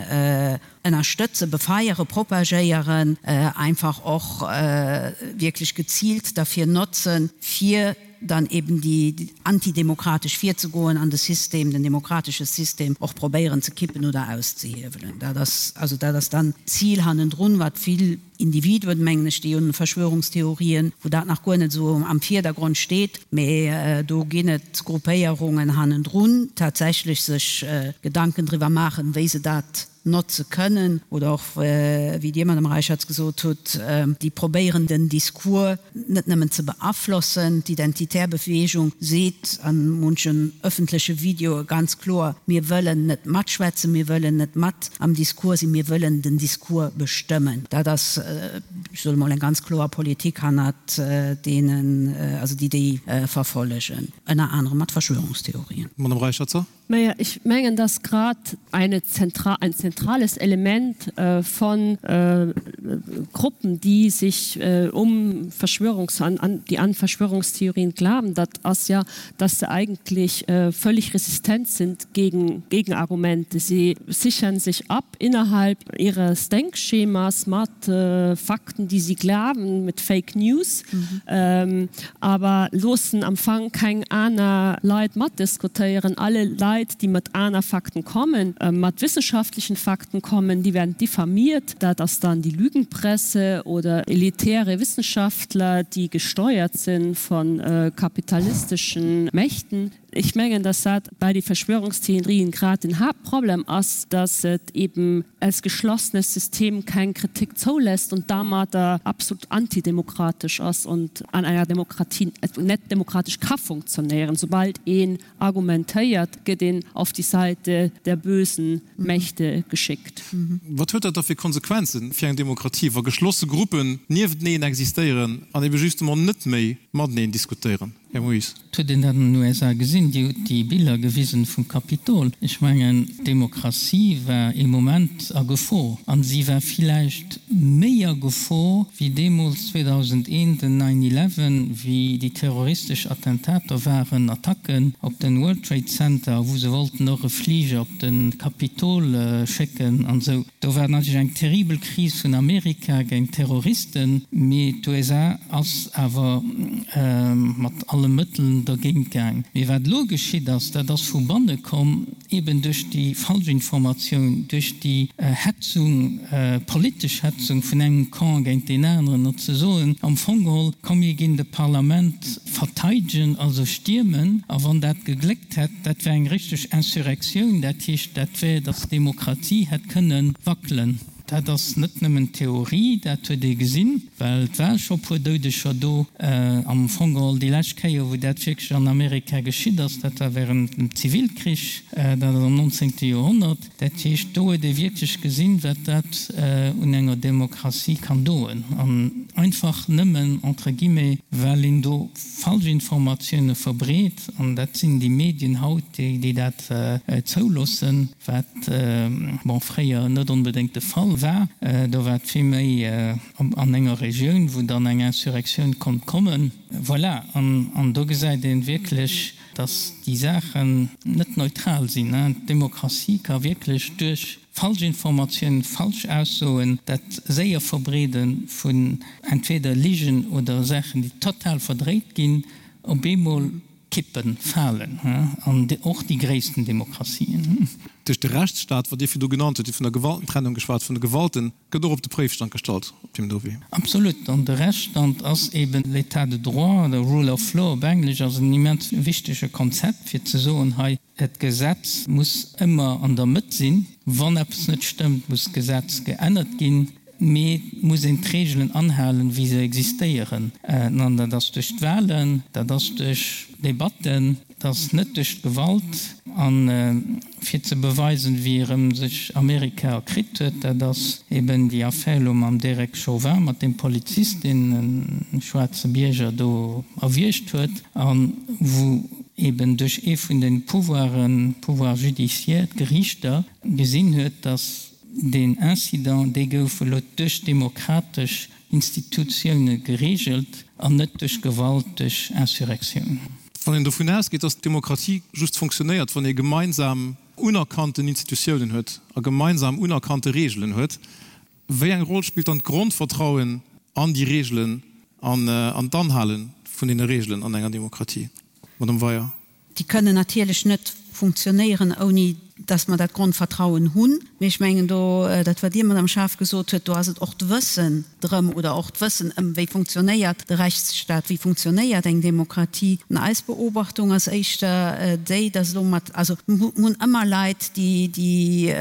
Speaker 5: ënnerstëtzen, befeieren, propagéieren, einfach och wierklech geziilt derfir notzen, fir dann eben déi antidemokratesch virzegoen an de System, den demokratesche System och probéieren ze kippen oder auszehiewelen. Dat ass, also dat ass dann d'Zil hannendrun, wat vill Individuen, mengen ech, déi un Verschwörungstheorien, wou dat nach guer net esou am Virdergrond steet, mee do ginn et Gruppéierungen hannendrun, tatsächlech sech Gedanken driwwer maachen, wéi se dat notze kënnen oder och, wéi Dir, Madame Reicherts, gesot hutt, déi probéieren den Discours net nëmmen ze beaflossen. D'Identitär Beweegung seet a munchen ëffentleche Videoe ganz kloer, Mir wëllen net matschwätzen, mir wëllen net mat am Discours sinn, mir wëllen den Discours bestëmmen. Dat ass, ech soe mol, eng ganz kloer Politik hannert deenen, also déi déi verfollegen, ënner anerem mat Verschwörungstheorien.
Speaker 3: Madame Reicherzer.
Speaker 7: Naja, ich mengen, dass grad eine zentral, ein zentrales Element äh, von äh, Gruppen, die sich äh, um Verschwörungs an, an, die an Verschwörungstheorien glauben, dat ass ja, dass sie eigentlich äh, völlig resistent sind gegen Gegenargumente. Sie sichern sich ab innerhalb ihres Denkschemas mat äh, Fakten, die sie glauben, mit Fake News. Mhm. Ähm, aber loossen am Fang keng aner Leit matdiskutéieren. Alle Leit, déi mat aner Fakten kommen, mat wissenschaftlechen Fakten kommen, déi werden diffamiert. Dat ass dann déi Lügenpresse oder elitäre Wissenschaftler, déi gesteuert sinn von kapitalisteschen Mächten. Ech mengen, dass dat bei de Verschwörungstheorien grad den Haaptproblem ass, dass et eben als geschlossenes System keng Kritik zoulässt und domadder absolut antidemokratesch ass und an enger Demokratie net demokratesch ka funktionéieren. Soubald een argumentéiert, gëtt een auf die Seite der bösen Mächte geschickt.
Speaker 3: Wat huet dat da fir Konsequenzen fir eng Demokratie, wa geschlosse Gruppen niefteneen existéieren an ebe justement net méi mateneen diskutéieren? Här Moes.
Speaker 4: Et huet een dat an den USA gesinn, Dir hutt déi Biller gewisen vum Kapitol. Ech mengen, d'Demokratie war ee Moment a Gefor. A si war villäicht méi a Gefor wéi deemools 2001 den Nine Eleven, wéi déi terroristesch Attentater waren, Attacken op den World Trade Center, wou se wollten och e Fliger op de Kapitol schécken an esou. Do war natierlech eng terribel Kris vun Amerika géint d'Terroristen, mee d'USA ass awer mat alle Mëtteln dergéint gaang. Mee wat elo geschitt ass, dat ass vu banne komm, eben duerch déi Falschinformatioun, duerch déi Hetzung, politesch Hetzung vun engem Camp géint deen aneren, no ze soen, am Fong geholl, komm mir ginn de Parlament verteidegen, also stiermen, a wann dat gegléckt hätt, dat wär eng richteg Insurrectioun, dat heescht, dat wär, datt d'Demokratie hätt kënne wackelen. Dat ass net nëmmen Theorie, dat huet ee gesinn, well et ware scho puer Doudeger do. Am Fong geholl déi lescht Kéier, wou dat wierklech an Amerika geschitt ass, dat war während dem Zivilkrich, dat ass am nonzéngte Joerhonnert. Dat heescht, do huet ee wierklech gesinn, wat dat un enger Demokratie kann doen. An einfach nëmmen, entre guillemets, well een do Falschinformatioune verbreet, an dat sinn déi Medien haut, déi dat zouloossen, wat, bon, fréier net onbedéngt de Fall war. Do war et vill méi an enger Regioun, wou dann eng Insurrectioun konnt kommen. Voilà, an do gesäit ee wierklech, dass déi Saachen net neutral sinn. D'Demokratie ka wierklech duerch Falschinformatiounen, falsch Aussoen, dat séier Verbreede vun entweder Ligen oder Saachen, déi total verdréit ginn, op eemol kippen, falen, an och déi gréissten Demokratien.
Speaker 3: Duerch de Rechtsstaat, wat Dir virdu genannt hutt, Dir hutt vun der Gewaltentrennung geschwat, vun de Gewalten, gëtt och op de Préifstand gestallt op deem do Wee.
Speaker 4: Absolut. An de Rechtsstand ass eben l'État de droit oder rule of law op Englesch ass en immens wichtege Konzept, fir ze soen, hei, d'Gesetz muss ëmmer an der Mëtt sinn. Wann eppes net stëmmt, muss d'Gesetz geännert ginn, mee et muss een d'Reegelen anhalen, wéi se existéieren. An dat ass duerch d'Wahlen, dat ass duerch Debatten. Et ass net duerch d'Gewalt. A fir ze beweisen, wéi erëm sech Amerika erkritt huet, dat ass eben déi Affär elo mam Derek Chauvin, mat deem Polizist, deen e schwaarze Bierger do erwiergt huet a wou eben duerch ee vun de Pouvoiren, Pouvoir judiciaire, d'Geriichter, gesinn huet, datt deen Incident, dee gouf elo duerch demokratesch Institutioune gereegelt an net duerch Gewalt, duerch Insurrectioun.
Speaker 3: Wann een dovun ausgeet, dass d'Demokratie just funktionéiert, wann ee gemeinsam unerkannten Institutiounen huet a gemeinsam unerkannte Reegelen huet, wéi eng Roll spillt dann d'Grondvertrauen an déi Reegelen an an d'Anhale vun deene Reegelen an enger Demokratie? Madame Weyer.
Speaker 5: Déi kënnen natierlech net funktionéieren, ouni dass mer dat Grondvertrauen hunn. Mee ech mengen do, dat wat Dir, Madame Schaaf, gesot huet, do ass et och d'Wëssen drëm oder och d'Wëssen ëm, wéi funktionéiert de Rechtsstaat, wéi funktionéiert eng Demokratie. An eis Beobachtung ass éischter déi, dass elo mat, also mir hunn ëmmer Leit, déi, déi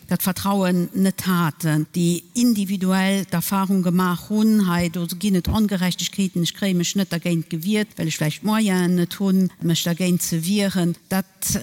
Speaker 5: dat Vertrauen net haten, déi individuell d'Erfahrung gemaach hunn, hei do ginn et Ongerechtegkeeten, ech kréie mech net dergéint gewiert, well ech vläicht d'Moyenen net hunn, mech dergéint ze wieren. Dat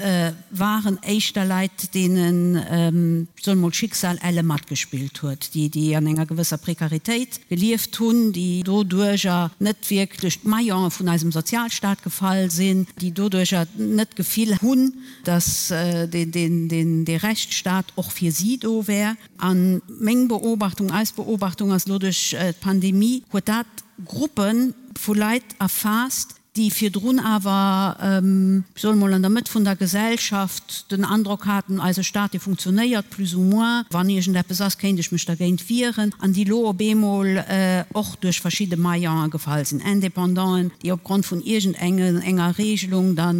Speaker 5: waren éischter Leit, deenen, ech soen emol, d'Schicksal elle matgespillt huet, déi, déi an enger gewësser Prekaritéit gelieft hunn, déi doduerjer net wierklech d'Maillone vun eisem Sozialstaat gefall sinn, déi doduerjer net d'Gefill hunn, dass dee Rechtsstaat och fir si do wär. A meng Beobachtung, eis Beobachtung ass elo, duerch d'Pandemie huet dat Gruppe vu Leit erfaasst, déi virdrun awer, ech soen emol, an der Mëtt vun der Gesellschaft den Androck haten, eise Staat, dee funktionéiert plus ou moins, wann iergendeppes ass, kéint ech mech dergéint wieren, an déi elo op eemol och duerch verschidde Maillonen gefall sinn, Independanten, déi opgrond vun iergendenger Regelung da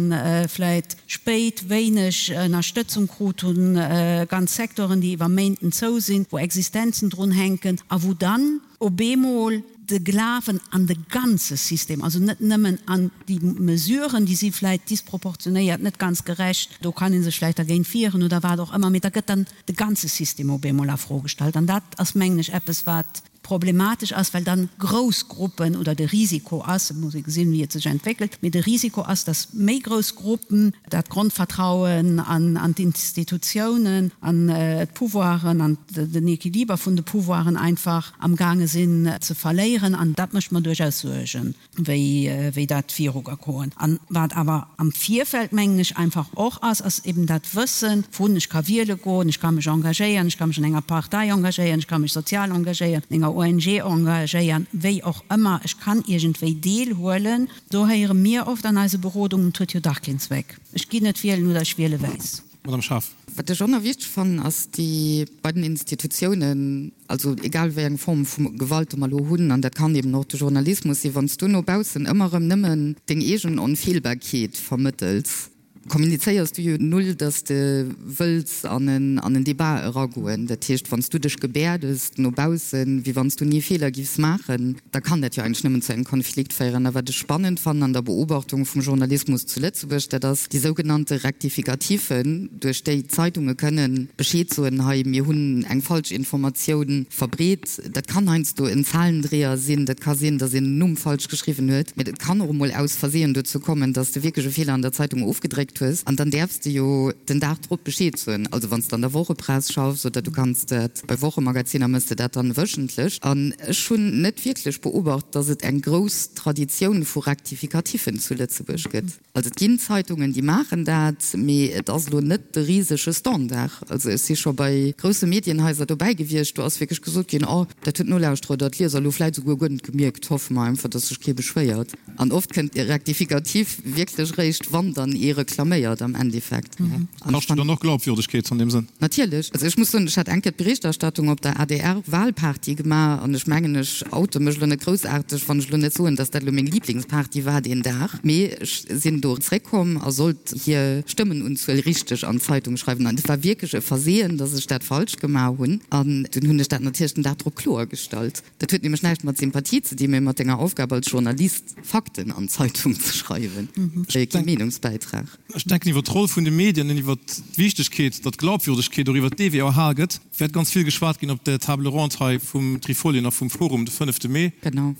Speaker 5: vläit spéit wéineg Ënnerstëtzung krut hunn, ganz Secteuren, déi iwwer Méinten zou sinn, wou Existenzen drun hänken a wou dann op eemol. De Glawen an de ganze System, also net nëmmen an déi Mesuren, déi si vläicht disproportionéiert, net ganz gerecht, do kann ee sech vläicht dergéint wieren oder wat och ëmmer, mee da gëtt dann de ganze System op eemol a Fro gestallt. An dat ass, mengen ech, eppes, wat problematesch ass, well dann grouss Gruppen oder de Risiko ass, et muss ee gesinn, wéi et sech entwéckelt, mee de Risiko ass, dass méi grouss Gruppen dat Grondvertrauen an d'Institutiounen, an d'Pouvoiren, an den Equiliber vun de Pouvoiren einfach amgaange sinn ze verléieren. An dat mécht mer duerchaus Suergen. wéi dat viru ka goen. An wat awer am Virfeld, mengen ech, einfach och ass, ass eben dat Wëssen vun, ech ka wiele goen, ech ka mech engagéieren, ech ka mech an enger Partei engagéieren, ech ka mech sozial engagéieren, an enger ONG engagéieren, wéi och ëmmer, ech kann iergendwéi deelhuelen. Do héiere mir oft an eise Berodungen, et huet jo dach keen Zweck, ech ginn net wielen oder ech wiele wäiss.
Speaker 3: Madame Schaaf.
Speaker 6: Wat ech och nach wichteg fannen, ass déi bei den Institutiounen, also egal wéi eng Form vu Gewalt mer elo hunn, an dat kann eben och de Journalismus sinn, wann s du no baussen ëmmer erëm nëmmen deng eegen Onfeelbarkeet vermëttels, kommunizéiers du jo null, datt s de wëlls an en Debat eragoen. Dat heescht, wann s du dech gebäerdes no baussen, wéi wann s du ni Feeler giffs maachen, da kann dat jo eigentlech nëmmen zu engem Konflikt féieren. A wat ech spannend fannen an der Beobachtung vum Journalismus zu Lëtzebuerg, dat ass déi sougenannte Rectificatifen, duerch déi d'Zeitunge kënnen Bescheed soen, hei mir hunn eng falsch Informatioun verbreet. Dat kann heiansdo en Zahlendreher sinn, dat ka sinn, datt een en Numm falsch geschriwwen huet, mä et kann och emol aus Versehen dozou kommen, datt s de wierklech e Feeler an der Zeitung ofgedréckt hues. An dann däerfs de jo den Dag drop Bescheed soen, also wann s de an der Wochepress schaffs oder du kanns dat Bei Wochemagaziner mëss de dat dann wöchentlech. An ech hunn net wierklech beobacht, dass et eng grouss Traditioun vu Rectificatifen zu Lëtzebuerg gëtt. Also et ginn Zeitungen, déi maachen dat, mee et ass elo net de risege Standard. Also ech si scho bei grousse Medienhaiser dobäi gewiescht, do ass wierklech gesot ginn, oh, dat huet d'Nolauschterer oder d'Lieser elo vläit esouguer guer net gemierkt, hoffe mer einfach, dass sech kee beschwéiert. An oft kënnt e Rectificatif wierklech eréischt, wann dann ee reklaméiert am Endeffekt.
Speaker 3: Kascht jo dann och Glaubwürdegkeet an deem Sënn.
Speaker 6: Natierlech. Also ech muss soen, ech hat eng Kéier d'Berichterstattung op der ADR-Wahlparty gemaach an ech mengen, ech oute mech elo net groussaarteg, wann ech elo net soen, datt dat elo meng Liblingsparty war deen Dag. Mee ech sinn do zréckkomm a sollt hir Stëmmenunzuel richteg an d'Zeitung schreiwen. An et war wierklech e Versehen, datt ech dat falsch gemaach hunn. An dunn hunn ech dat natierlech den Dag drop kloergestallt. Dat huet nämlech näischt mat Sympathie ze dinn, mee mat denger Aufgab als Journalist, Fakten an d'Zeitung ze schreiwen, kee Meenungsbäitrag.
Speaker 3: Ech denken, iwwer d'Roll vun de Medien an iwwer d'Wichtegkeet, datt d'Glaubwürdegkeet och iwwer dee Wee erhal gëtt, wäert ganz vill geschwat ginn op der Table ronde hei vum Trifolien a vum Forum de fënnefte Mee,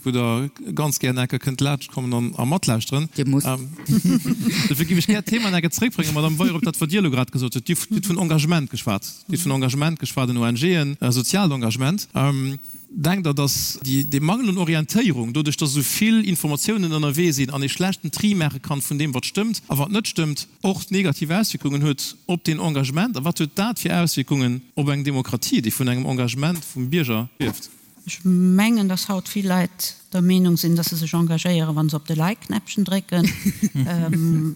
Speaker 3: wou Der ganz gär enker kënnt laanscht kommen a matlauschteren.
Speaker 6: Dir musst.
Speaker 3: Dofir géif ech gär d'Thema enker zréckbréngen, Madame Weyer, op dat, wat Dir elo grad gesot hutt. Dir hutt vun Engagement geschwat. Dir hutt vun Engagement geschwat an ONGen, soziaalt Engagement. Denkt Der, dass dee Mangel un Orientéierung, doduerch dass esou vill Informatiounen ënnerwee sinn an ee schlechten Tri maache kann vun deem, wat stëmmt a wat net stëmmt, och negativ Auswierkungen huet op deen Engagement? A wat huet dat fir Auswierkungen op eng Demokratie, déi vun engem Engagement vum Bierger lieft?
Speaker 5: Ech mengen, dass haut vill Leit der Meenung sinn, dass se sech engagéieren, wa se op de Like-Knäppchen drécken.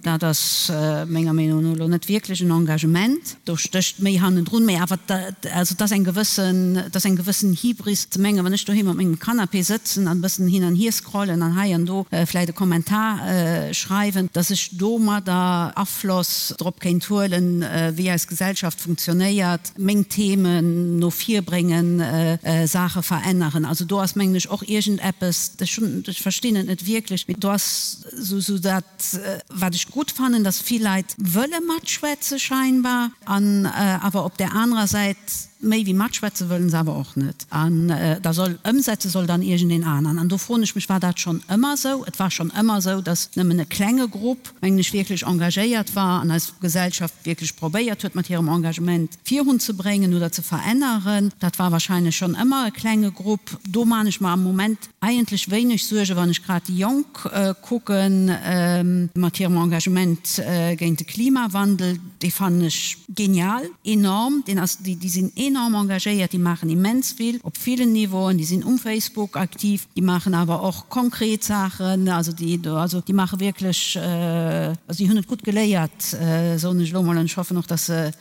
Speaker 5: Dat ass menger Meenung no elo net wierklech en Engagement. Do stécht méi hannendrun, mee awer, also et ass eng gewëssen, et ass eng gewëssen Hybris ze mengen, wann ech doheem op mengem Canapé sëtzen an e bëssen hin an hier scrollen an hei an do vläicht e Kommentar schreiwen, dass ech domadder Afloss drop kéint huelen, wéi eis Gesellschaft funktionéiert, meng Themen no vir bréngen, Saache veränneren. Also do ass, mengen ech, och iergendeppes, ech hunn, ech verstinn et net wierklech, mee do ass esou dat, Wat ech gutt fannen, dass vill Leit wëlle matschwätze scheinbar, an awer op där anerer Säit méi wéi matschwätze wëllen se awer och net. An da soll ëmsetze soll dann iergendeen aneren. An do froen ech mech, war dat schonn ëmmer esou? Et war schonn ëmmer esou, dass nëmmen e klenge Grupp, mengen ech, wierklech engagéiert war an eis Gesellschaft wierklech probéiert huet mat hirem Engagement virunzebréngen oder ze veränneren. Dat war wahrscheinlech schonn ëmmer e klenge Grupp. Do man ech mer am Moment Eigentlech wéineg Suerge wann ech grad déi Jonk kucken mat hirem Engagement géint de Klimawandel. Dee fannen ech genial, enorm. Deen ass, déi sinn enorm engagéiert, déi maachen immens vill op villen Niveauen. Déi sinn um Facebook aktiv, déi maachen awer och konkret Saachen. Also déi, also déi maache wierklech, also déi hunn et gutt geléiert, soen ech elo mol. An ech hoffen och, datt se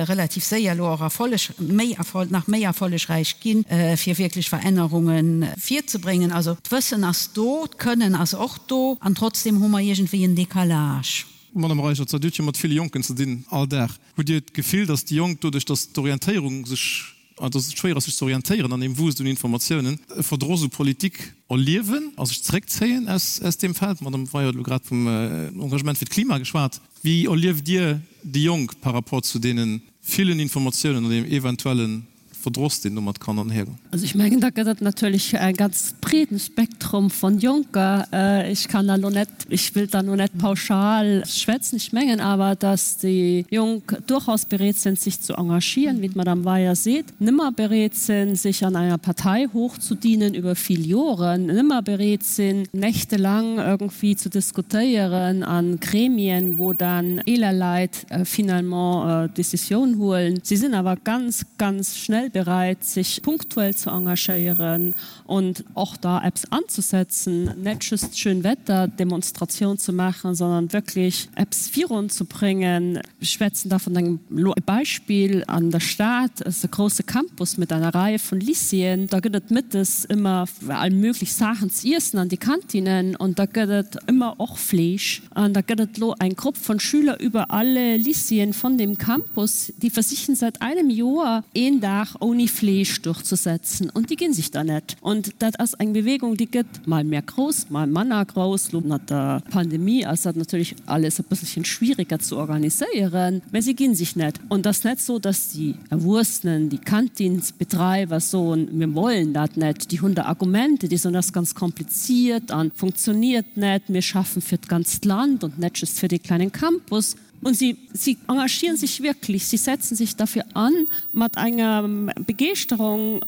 Speaker 5: relativ séier elo och Erfolleg, méi Erfolg, nach méi erfollegräich ginn, fir wierklech Verännerunge virzebréngen. Also d'Wëssen ass do, d'Kënnen ass och do, an trotzdem hu mer iergendwéi en Décalage.
Speaker 3: Madame Reichert, Dir hutt jo mat ville Jonken ze dinn all Dag. Hutt Dir d'Gefill, datt déi Jonk, doduerch datt d'Orientéierung sech. An dass et schwéier ass sech ze orientéieren an deem Wust un Informatiounen, e Verdross u Politik erliewen a sech zeréckzéien aus aus deem Feld. D'Madame Weyer huet elo grad vum Engagement fir d'Klima geschwat. Wéi erlieft Dir déi Jonk par rapport zu deene villen Informatiounen an deem eventuelle Verdross, deen domat kann anhergoen?
Speaker 7: Also ech mengen, da gëtt et natierlech e ganz breeden Spektrum von Jonker. Ech kann da lo net, ech wëllt da lo net pauschal schwätzen. Ech mengen awer, dass déi Jonk durchaus bereet sinn, sech ze engagieren, wéi d'Madame Weyer seet, nëmmer bereet sinn, sech an enger Partei hochzudienen über vill Joren, nëmmer bereet sinn, nächtelang irgendwie ze diskutéieren a Gremien, wou dann eeler Leit finalement d'Decisioun huelen. Si sinn awer ganz, ganz schnell bereit, sech punktuell ze engagéieren und och da eppes anzusetzen, net just Schönwetterdemonstration ze maachen, sondern wirklich eppes virunzubringen. Ech schwätzen da vun engem, elo e Beispill, an der Stad ass e grouse Campus mit einer Reihe vun Lycéeën, da gëtt et mëttes ëmmer all möglich Saachen z'iessen an de Kantinen und da gëtt et ëmmer och Fleesch. An da gëtt et lo eng Grupp von Schüler über alle Lycéeën von dem Campus, déi versichen seit einem Joer een Dag ouni Fleesch durchzusetzen und déi ginn sich da net. Und dat ass eng Bewegung, déi gëtt mal mehr grouss, mal manner grouss. Lo mat der Pandemie ass dat natierlech alles e bësselchen schwieriger ze organiséieren, mä si ginn sich net. Und ass net sou, dass déi Erwuessenen, déi Kantinsbetreiber soen, mir wollen dat net. Déi hunn da Argumente, déi soen, dat ass ganz kompliziert a funktioniert net, mir schaffen fir d'ganzt Land und net just fir dee kleinen Campus. Und sie, sie engagieren sich wirklich, sie setzen sich dafür an mat enger Begeeschterung,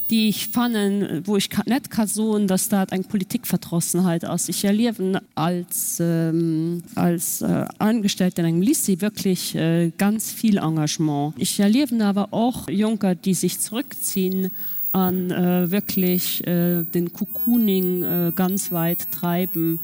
Speaker 7: déi ech fannen, wou ech net ka soen, dass dat eng Politikverdrossenheit ass. Ech erliewen als, als Angestellte an engem Lycée wirklich ganz vill Engagement. Ech erliewen awer och Jonker, déi sech zrëckzinn a wirklich den Cocooning ganz weit treiben.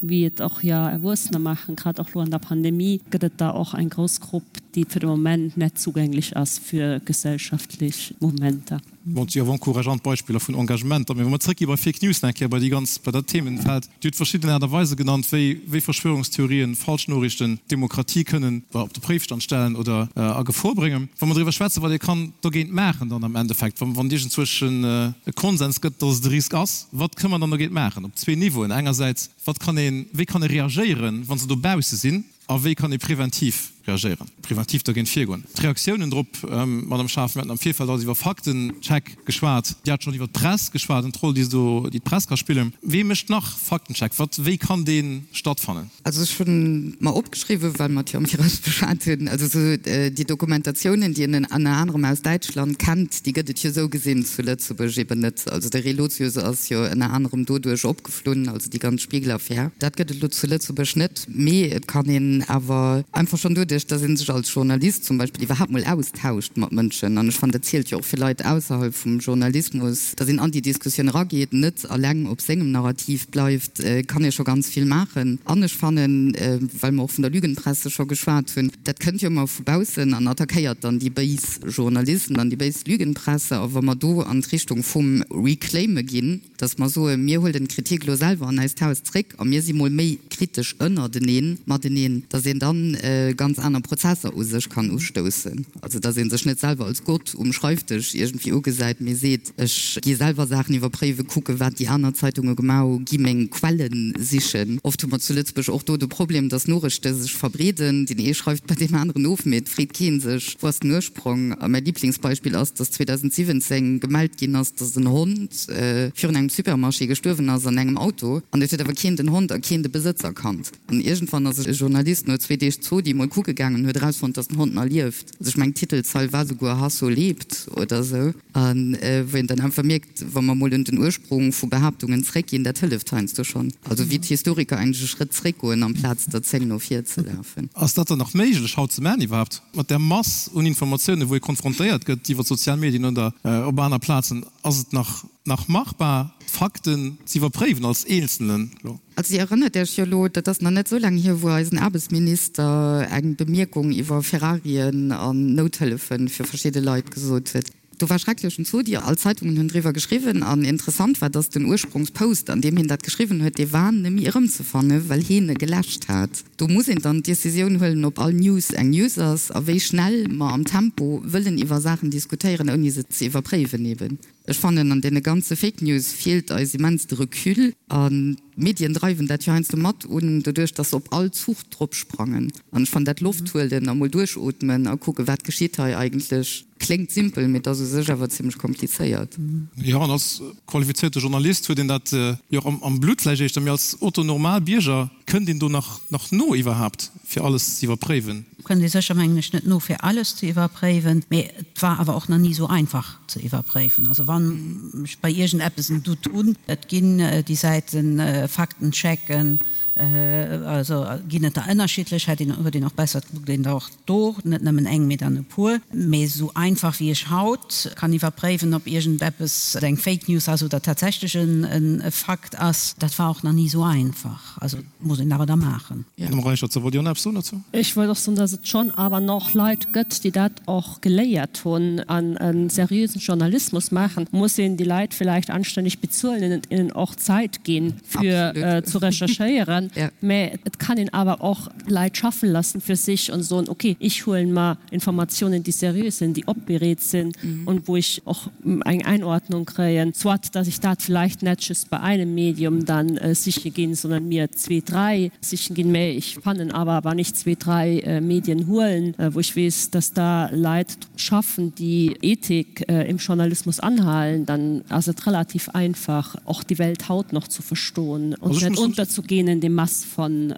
Speaker 7: wéi et och jo Erwuessener maachen, grad och lo an der Pandemie gëtt et der och eng grouss Grupp, déi fir de Moment net zugänglech ass fir gesellschaftlech Mouvementer.
Speaker 3: Bon, et si awer encourageant Beispiller vun Engagementer. Mee wa mer zrëckgi bei Fake News nach eng Kéier, bei déi ganz, bei dat Themenfeld. Dir hutt verschidden Aart a Weise genannt, wéi, wéi Verschwörungstheorien, Falschnoriichten d'Demokratie kënnen op de Préifstand stellen oder a Gefor bréngen. Wa mer driwwer schwätzen, wat ee kann dogéint maachen dann am Endeffekt, wann, wann et iergendzwousch e Konsens gëtt, dass et e Risk ass, wat kënne mer dann dogéint maachen? Op zwee Niveauen, engersäits, wat kann een, wéi kann e reagéieren, wa se dobausse sinn, a wéi kann ee preventiv reagéieren, preventiv dergéint virgoen? D'Reaktiounen drop, Madame Schaaf, mir haten am Virfeld alles iwwer Faktencheck geschwat, Dir hat schonn iwwer d'Press geschwat an d'Roll, déi se do, déi d'Press ka spillen. Wee mécht nach Faktencheck? Wat, wéi kann dee stattfannen?
Speaker 6: Also ech hunn mer opgeschriwwen, well mer et jo am Viraus beschwat hunn, also esou déi Dokumentatiounen, déi een ënner anerem aus Däitschland kennt, déi gëtt et jo esou gesinn zu Lëtzebuerg eben net. Also de Relotius ass jo ënner anerem doduerch opgeflunn, also déi ganz Spiegel-Affär. Dat gëtt et elo zu Lëtzebuerg net, mee et kann een awer einfach schonn doduerch, datt ee sech als Journalist zum Beispill iwwerhaapt mol austauscht mat Mënschen, an ech fannen, dat zielt jo och fir Leit ausserhalb vum Journalismus, datt een an déi Diskussioun erageet, net eleng op sengem Narrativ bleift, kann ee scho ganz vill maachen. An ech fannen, well mer och vun der Lügenpresse scho geschwat hunn, dat kënnt jo ëmmer vu baussen an attackéiert dann déi béis Journalisten an déi béis Lügenpresse. A wa mer do an d'Richtung vum Reclaime ginn, datt mer soen, mir huelen d'Kritik elo selwer an eist Haus zréck a mir si mol méi kritesch ënnerteneen, mateneen, datt een dann ganz aner Prozesser u sech kann ustoussen. Also datt ee sech net selwer als Gott um Schreifdësch iergendwéi ugesäit, mee seet, ech gi selwer Saachen iwwerpréiwen, kucken, wat déi aner Zeitunge gemaach hu, gi meng Quelle sichen. Oft hu mer zu Lëtzebuerg och do de Problem, datt Noriichte sech verbreeden, deen ee schreift bei deem aneren of, mee et freet kee sech, wou ass den Ursprong? A mäi Liblingsbeispill ass, datt 2017 gemellt ginn ass, datt en Hond virun engem Supermarché gestuerwen ass an engem Auto, an et huet awer keen den Hond a keen de Besëtzer kannt. An iergendwann ass e Journalist no zwee Deeg Zodi mol kucke gaangen an huet erausfonnt, dass den Hond nach lieft. Also ech mengen d'Titelzeil war souguer Hasso lebt oder esou. A wou een dann einfach mierkt, wa mer mol un den Ursprung vu Behaaptungen zréckginn, dat hëlleft heiansdo schonn. Also wéi d'Historiker eigentlech e Schrëtt zréckgoen amplaz der 10 no vir ze lafen.
Speaker 3: Ass dat dann nach méiglech haut ze maachen iwwerhaapt, mat där Mass un Informatiounen, wou ee konfrontéiert gëtt iwwer d'sozial Medien oder op aner Plazen? Ass et nach nach machbar, d'Fakten z'iwwerpréiwen als Eenzelnen elo?
Speaker 6: Also Dir erënnert Iech jo elo, dat ass nach net esou laang hier, wou eisen Aarbechtsminister eng Bemierkung iwwer Ferrarien an Nouthëllefe fir verschidde Leit gesot huet. Do war schrecklechen Zodi, all d'Zeitungen hunn driwwer geschriwwen an interessant war, dass den Ursprongspost, an deem hien dat geschriwwen huet, dee war nemme erëmzefanne well hien e geläscht hat. Do muss een dann d'Decisioun huelen, ob all News eng News ass a wéi schnell mer am Tempo wëllen iwwer Saachen diskutéieren, ouni se ze iwwerpréiwen eben. Ech fannen, an deene ganze Fake News feelt eis immens de Recul an d'Medien dreiwen dat jo heiansdo mat un, doduerch dass se op all Zuch drop sprangen. An ech fannen dat Loft huelen a mol duerchootmen a kucken, wat geschitt hei eigentlech, kléngt simpel, mee et ass u sech awer zimmlech komplizéiert.
Speaker 3: Jo, an als qualifizéierte Journalist huet een dat jo och am Blutt vläicht éischter, mee als Otto Normal Bierger kënnt een do nach no iwwerhaapt fir alles ze iwwerpréiwen?
Speaker 5: Kënnt ee sécher, mengen ech, net no fir alles ze iwwerpréiwen, mee et war awer och nach ni esou einfach ze iwwerpréiwen. Also wann ech bei iergendeppes en Doute hunn, et ginn déi Säiten Faktenchecken, also ginn et der ënnerschiddlech, hätt een, huet een och besser, et kuckt een der och do net nëmmen eng, mee dann e puer. Mee esou einfach wéi ech haut kann iwwerpréiwen, ob iergendeppes eng Fake News ass oder tatsächlech e Fakt ass, dat war och nach ni esou einfach. Also muss een awer da maachen.
Speaker 3: Madame Reichert, wollt Dir och nach eppes soen dozou?
Speaker 7: Ech wollt och soen, dass et schonn awer nach Leit gëtt, déi dat och geléiert hunn an e seriösen Journalismus maachen. Muss een déi Leit villäicht anstänneg bezuelen an hinnen och Zäit ginn, fir zu recherchéieren. Mä et kann een awer och Leit schaffen lassen fir sech an soen, okay, ich huelen mer Informatiounen, déi seriös sinn, déi opbereet sinn und wou ech och eng Einordnung kréien, soit dass ich dat vielleicht net just bei einem Medium dann siche ginn, sondern mir zwee, dräi sichen ginn, mä ich fannen awer, wann ich zwee, dräi Medien huelen, wou ich weess, dass da Leit schaffen, déi Ethik im Journalismus anhalen, dann ass et relativ einfach, och die Welt haut noch zu verstoen und net unterzugehen in dem Mass von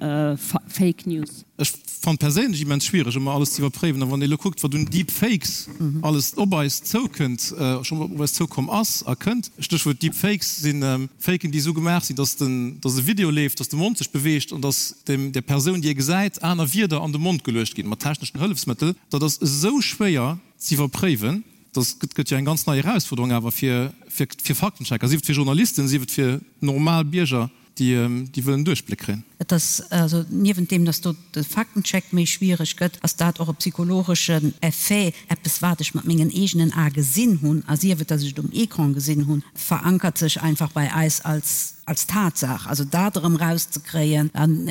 Speaker 7: Fake News.
Speaker 3: Ech fannen perséinlech immens schwiereg ëmmer alles ze iwwerpréiwen, a wann ee lo kuckt wat un Deep Fakes alles op eis zoukënnt, schonn op eis zoukomm ass a kënnt, Stéchwuert Deep Fakes sinn Faken déi esou gemaach sinn, dass den, dass e Video leeft, dass de Mond sech beweegt an dass dem, der Persoun déi ee gesäit, aner Wierder an de Mond geluecht ginn mat techneschen Hëllefsmëttel. Dat ass esou schwéier ze iwwerpréiwen, dat gëtt jo eng ganz nei Erausfuerderung awer fir, fir, fir Faktenchecker, sief et fir Journalisten, sief et fir normal Bierger. déi wëllen Duerchbléck kréien.
Speaker 5: Et ass also, niewent deem, dass do de Faktencheck méi schwiereg gëtt, ass dat och e psychologeschen Effet, eppes wat ech mat mengen eegenen Ae gesinn hunn, a sief et, dass ech et um Ecran gesinn hunn, verankert sech einfach bei eis als als Tatsaach. Also dat erëm erauszekréien, an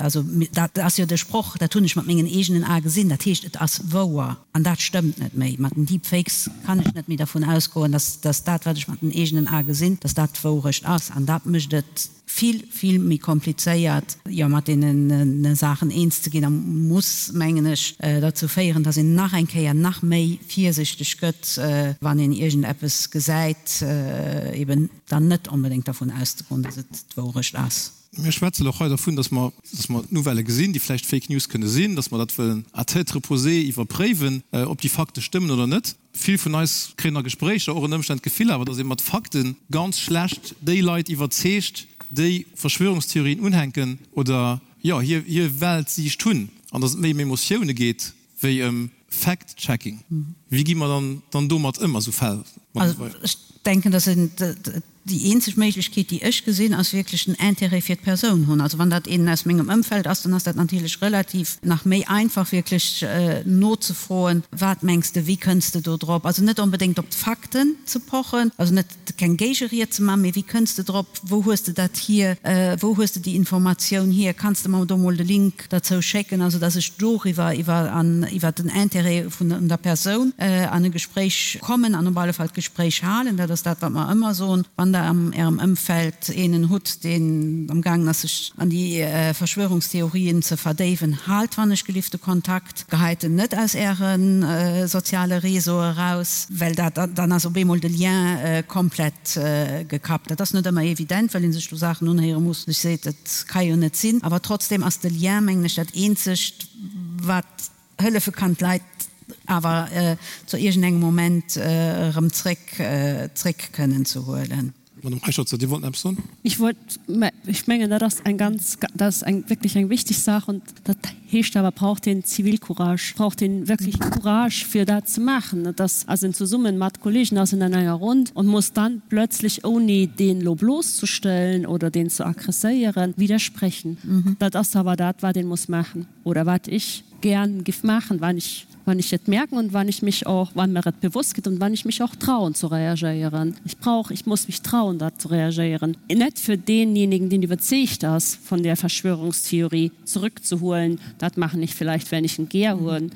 Speaker 5: also dat ass jo de Sproch, dat hunn ech mat mengen eegenen Ae gesinn, dat heescht, et ass wouer. An dat stëmmt net méi. Mat den Deepfakes kann ech net méi dervun ausgoen, dass dass dat, wat ech mat den eegenen Ae gesinn, dass dat d'Wourecht ass. An dat mécht et vill, vill méi komplizéiert, jo, mat deene Saachen eens ze ginn a muss, mengen ech, derzou féieren, dass een nach eng Kéier nach méi virsichteg gëtt, wann een iergendeppes gesäit, eben dann net onbedéngt dervun auszegoen, dass et d'Wourecht ass.
Speaker 3: Mir schwätzen och hei dervun, dass mer, dass mer Nouvellë gesinn, déi vläicht Fake News kënne sinn, dass mer dat wëllen à tête reposée iwwerpréiwen, ob déi Fakte stëmmen oder net. Vill vun eis kréien a Gespréicher och ënner Ëmstänn d'Gefill awer, dass ee mat Fakte ganz schlecht déi Leit iwwerzeegt, déi Verschwörungstheorien unhänken oder, jo, hir, hir Weltsiicht hunn, an dass et méi ëm Emotioune geet wéi ëm Fact-checking. Wéi gi mer dann, dann domat ëm a sou Fäll?
Speaker 5: Also ech denken, dass een Déi eenzeg Méiglechkeet, déi ech gesinn, ass wierklech den Intérêt fir d'Persoun hunn. Also wann dat een aus mengem Ëmfeld ass, dann ass dat natierlech relativ nach méi einfach wierklech nozefroen, Wat mengs de, wéi kënns de do drop? Also net onbedéngt op d'Fakten ze pochen, also net keng Géigeried ze maachen, mee wéi kënns de drop, wou hues de dat hier, wou hues de déi Informatioun hier, kanns de mer do mol de Link derzou schécken, also dass ech doriwwer iwwer an iwwert den Intérêt vun der Persoun an e Gespréich kommen an op alle Fall d'Gespréich halen. Dat ass dat, wat mer ëmmer soen, wann Der am Ärem Ëmfeld eenen hutt, deen amgaangen ass, sech an déi Verschwörungstheorien ze verdéiwen, haalt wann ech gelift de Kontakt, geheit en net aus Äre soziale Réseaue eraus, well dat dann ass op eemol de Lien komplett gekappt. Dat ass net ëmmer evident, well ee sech do Saachen unhéiere muss, wou sech seet, dat ka jo net sinn. Awer trotzdeem ass de Lien, mengen ech, dat eenzegt, wat hëllefe kann, d'Leit awer zu iergendengem Moment erëm zréck zréck kënnen ze huelen.
Speaker 3: Madame Reicherzer, Dir wollten eppes soen?
Speaker 7: Ech wollt, mä ech mengen, dat ass eng ganz, dat ass eng wierklech eng wichteg Saach. Und dat heescht awer, braucht een Zivilcourage, braucht een wierklech Courage, fir dat ze maachen. Dat ass also zesummen mat Kollegen ass een an enger Rund und muss dann plötzlich, ouni deen elo blosszestellen oder deen ze aggresséieren, widersprechen. Dat ass awer dat, wat een muss maachen oder wat ech gären giff maachen, wann ech. Wann ich et merken und wann ich mich auch wann mir et bewusst gëtt und wann ich mich auch trauen zu reagéieren. Ich brauch, ich muss mich trauen da zu reagéieren. Net fir deenjenigen, deen iwwerzeegt ass vun där Verschwörungstheorie zurückzuholen, dat machen ich vielleicht wenn ich en gär hunn,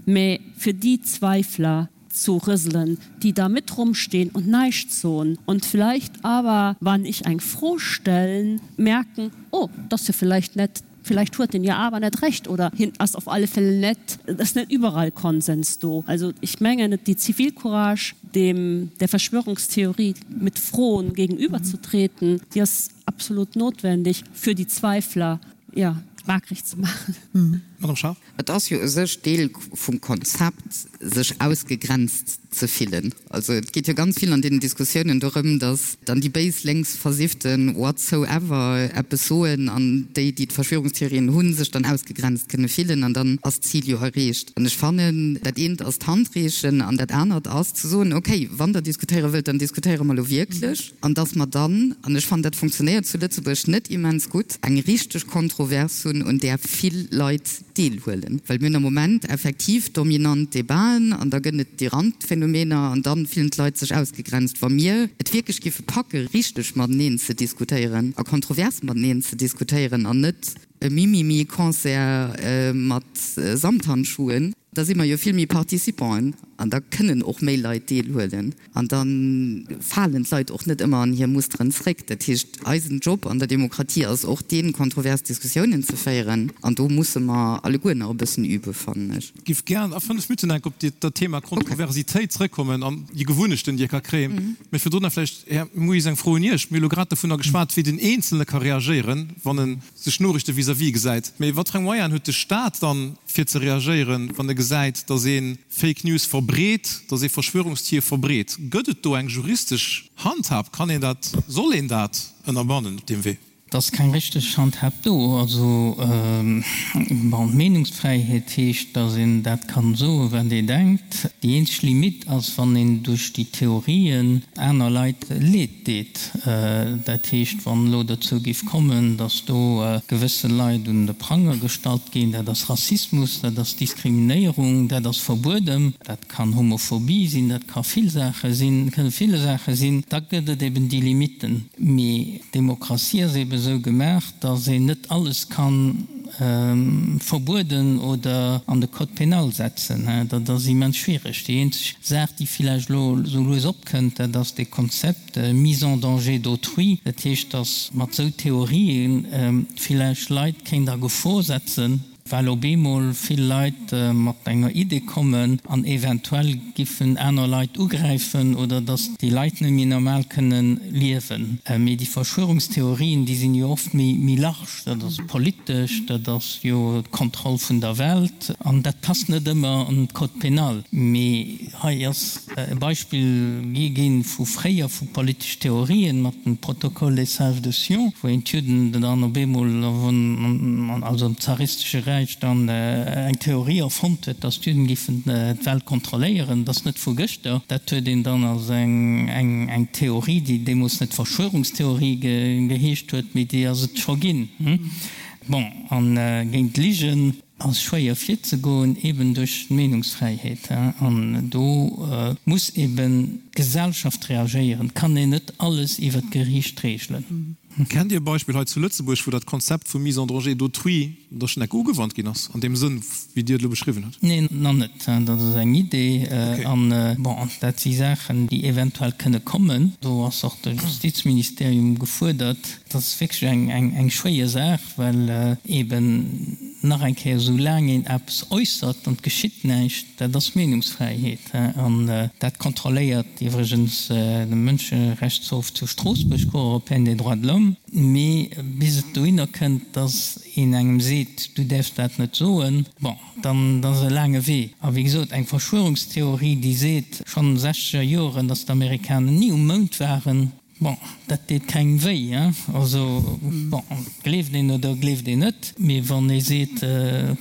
Speaker 7: mä fir déi Zweifler zu rëselen, déi da mit rumstehen und näischt soen und vielleicht awer, wann ich eng Fro stellen, merken, oh, dat ass jo vielleicht net Vielleicht huet en jo awer net Recht oder hien ass auf alle Fälle net, et ass net überall Konsens do. Also ich mengen, déi Zivilcourage, dem der Verschwörungstheorie mit Froen gegenüberzutreten, déi ass absolut notwendig für die Zweifler, ja, wakreg ze maachen.
Speaker 3: Madame Schaaf.
Speaker 6: Et ass jo u sech Deel vum Konzept, sech ausgegrenzt ze fillen. Also et geet jo ganz vill an deenen Diskussiounen dorëm, datt dann déi béis lénks Versifften what so ever eppes soen an déi, déi d'Verschwörungstheorien hunn, sech dann ausgegrenzt kënne fillen an dann ass d'Zil jo erreecht. An ech fannen, dat eent ass d'Handreechen an dat anert ass ze soen, okay, wann Der diskutéiere wëllt, dann diskutéiere mer elo wierklech. An datt mer dann, an ech fannen, dat funktionéiert zu Lëtzebuerg net immens gutt, eng richteg Kontrovers hunn, un där vill Leit deelhuelen. Well mir hunn am Moment effektiv dominant Debaten an da gëtt et déi Randphänomener an da fillen d'Leit sech ausgegrenzt. Wa mir et wierklech géife packe richteg mateneen ze diskutéieren a kontrovers mateneen ze diskutéieren an net e Mimimi-Concert mat Samthandschuhen, da si mer jo vill méi Participanten an da kënnen och méi Leit deelhuelen an da falen d'Leit och net ëmmer an hir Musteren zréck. Dat heescht, eisen Job an der Demokratie ass och deen, kontrovers Diskussiounen ze féieren an do musse mer alleguer nach e bëssen üben, fannen ech.
Speaker 3: Giff gären a 5 Minutten enk op dat Thema Kontroversitéit zrëckkommen an déi Gewunnechten, déi ee ka kréien. Mä virdrun nach vläicht, Här Mouis, eng Fro un Iech. Mir hu lo grad dovunner geschwat, wéi den Eenzelne ka reagéieren, wann e sech Noriichte vis-à-vis gesäit. Mee wat fir eng Moyenen huet de Staat dann, fir ze reagéieren, wann e gesäit, datt ee Fake News verbreet, datt ee Verschwörungstheorie verbreet? Gëtt et do eng juristesch Handhab? Kann een dat, soll een dat ënnerbannen op deem Wee?
Speaker 4: Et ass keng richteg Handhab do. Also, bon, d'Meenungsfräiheet heescht, datt een dat kann soen, wat ee denkt. Déi eenzeg Limite ass, wann een duerch déi Theorien aner Leit Leed deet. Dat heescht, wann elo dozou géif kommen, datt do gewësse Leit un de Pranger gestallt ginn, dat ass Rassismus, dat ass Diskriminéierung, dat ass verbueden. Dat kann Homophobie sinn, dat ka vill Saache sinn, kënne ville Saache sinn. Da gëtt et eben déi Limiten. Mee d'Demokratie ass eben esou gemaach, datt een net alles ka verbueden oder an de Code pénal setzen. Dat ass immens schwiereg. Déi eenzeg Saach, déi villäicht elo esou lues opkënnt, dat ass dee Konzept mise en danger d'autrui. Dat heescht, datt mat esou Theorië villäicht Leit kéint a Gefor setzen. Well op eemol vill Leit mat enger Idee kommen an eventuell giffen aner Leit ugräifen oder datt déi Leit net méi normal kënnen liewen. Mee déi Verschwörungstheorien, déi sinn jo oft méi méi large, dat ass politesch, dat ass jo d'Kontroll vun der Welt an dat passt net ëmmer an d'Code pénal. Mee hei ass e Beispill gi ginn vu fréier, vu politesch Theorien mat dem Protocole des Sages de Sion, wou een d'Judden dann op eemol, also am zaristesche Räich, dann eng Theorie erfonnt huet, datt d'Judden giffen d'Welt kontrolléieren. Dat ass net vu gëschter. Dat huet een dann als eng Theorie, déi deemools net Verschwörungstheorie geheescht huet, mee déi ass et scho ginn. Bon, a géint d'Ligen. Ass schwéier virzegoen, eben duerch d'Meenungsfräiheet. An do muss eben d'Gesellschaft reagéieren. Et kann een net alles iwwer d'Geriicht regelen.
Speaker 3: Kennt Dir e Beispill hei zu Lëtzebuerg, wou dat Konzept vu Mise en danger d'autrui da schonn enke ugewannt ginn ass, an deem Sënn, wéi Dir et elo beschriwwen hutt?
Speaker 4: Neen, nach net. Dat ass eng Idee. An, bon, dat si Saachen, déi eventuell kënne kommen. Do ass och de Justizministerium gefuerdert. Dat ass wierklech eng schwéier Saach, well eben nach eng Kéier, esou laang een eppes äussert an et geschitt näischt, dat ass Meenungsfräiheet. An dat kontrolléiert iwwregens de Mënscherechtshof zu Stroossbuerg, Cour européenne des droits de l'homme. Mee bis et dohinner kënnt, dass een engem seet, du däerfs dat net soen, bon, dann ass e laange Wee. A wéi gesot, eng Verschwörungstheorie, déi seet schonn sechzeger Joren, dass d'Amerikaner ni um Mound waren. Bon, dat deet kengem wéi, hein. Also, bon, gleeft een oder gleeft een net. Mee wann ee seet,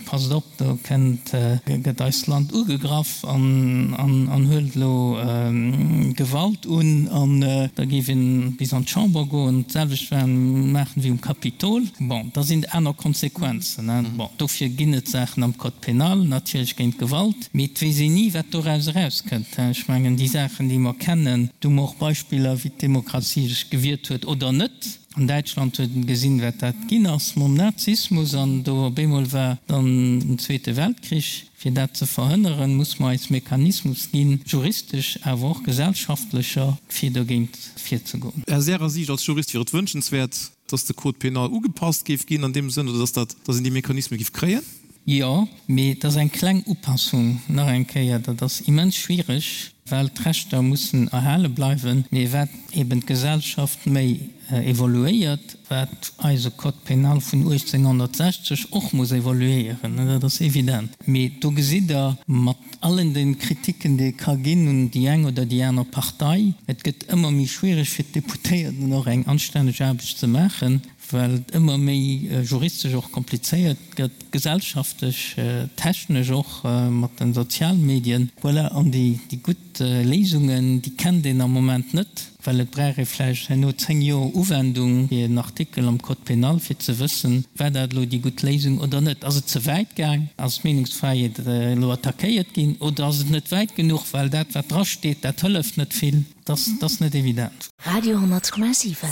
Speaker 4: passt op, do kennt, gëtt eist Land ugegraff an, an huelt elo Gewalt un, an da géif een bis an d'Chamber goen, d'selwecht maachen wéi um Kapitol, bon, da sinn et aner Konsequenzen, hein. Bon, dofir ginn et Saachen am Code pénal, natierlech géint Gewalt. Mee et weess een ni, wat doraus erauskënnt. Ech mengen, déi Saachen, déi mer kennen, do hu mer och Beispiller, wéi d'Demokratie sech gewiert huet oder net. An Däitschland huet een gesinn, wat dat ginn ass mam Nazismus, an do op eemol war dann den Zweete Weltkrich. Fir dat ze verhënneren, muss mer eis Mechanismus ginn, juristesch, awer och gesellschaftlecher, fir dogéint virzegoen.
Speaker 3: Aus Ärer Siicht als Jurist wier et wënschenswäert, dass de Code pénal ugepasst géif ginn an deem Sënn, oder dass dat, dass een déi Mechanisme géif kréien?
Speaker 4: Jo, mee et ass eng kleng Upassung. Nach eng Kéier, dat ass immens schwierig, well d'Rechter mussen erhale bleiwen. Mee wat eben d'Gesellschaft méi evoluéiert, wat eise Code pénal vun 1860 och muss evoluéieren, dat ass evident. Mee do gesitt Der mat allen de Kritiken, déi ee ka ginn un déi eng oder déi aner Partei, et gëtt ëmmer méi schwierig fir d'Deputéierten och eng anstänneg Aarbecht ze maachen, well et ëmmer méi juristesch och komplizéiert gëtt, gesellschaftlech, technesch och mat de Sozialmedien. Voilà, an déi gutt Léisungen, déi kennt een am Moment net, well et brauch ee vläicht herno 10 Joer Uwendung fir en Artikel am Code pénal, fir ze wëssen, war dat elo déi gutt Léisung oder net. Ass et ze wäit gaang? Ass d'Meenungsfräiheet elo attackéiert ginn? Oder ass et net wäit genuch, well dat, wat drasteet, dat hëlleft net vill? Dat ass net evident.
Speaker 1: Radio 10,7.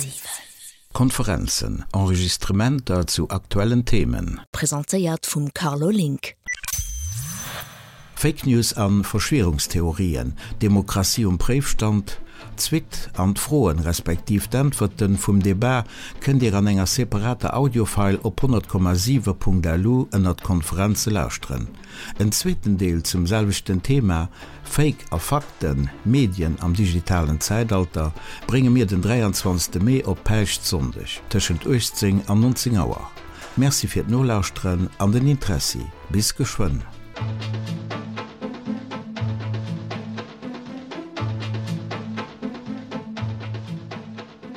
Speaker 2: Konferenzen, Enregistrementer zu aktuellen Themen.
Speaker 1: Presentéiert vum Carlo Link.
Speaker 2: Fake News an Verschwierungstheorien, Demokratie um Préifstand? D'Suite an d'Froen respektiv d'Äntwerten vum Debat kënnt Dir an enger separater Audiofile op 100,7.lu ënnert Konferenze lauschteren. En zweeten Deel zum selwechten Thema, Fake a Fakten, Medien am digitalen Zäitalter, brénge mir den 23. Mee op Päischtsonndeg tëschent 18 an 19 Auer. Merci fir d'Nolauschteren an den Interessi. Bis geschwënn.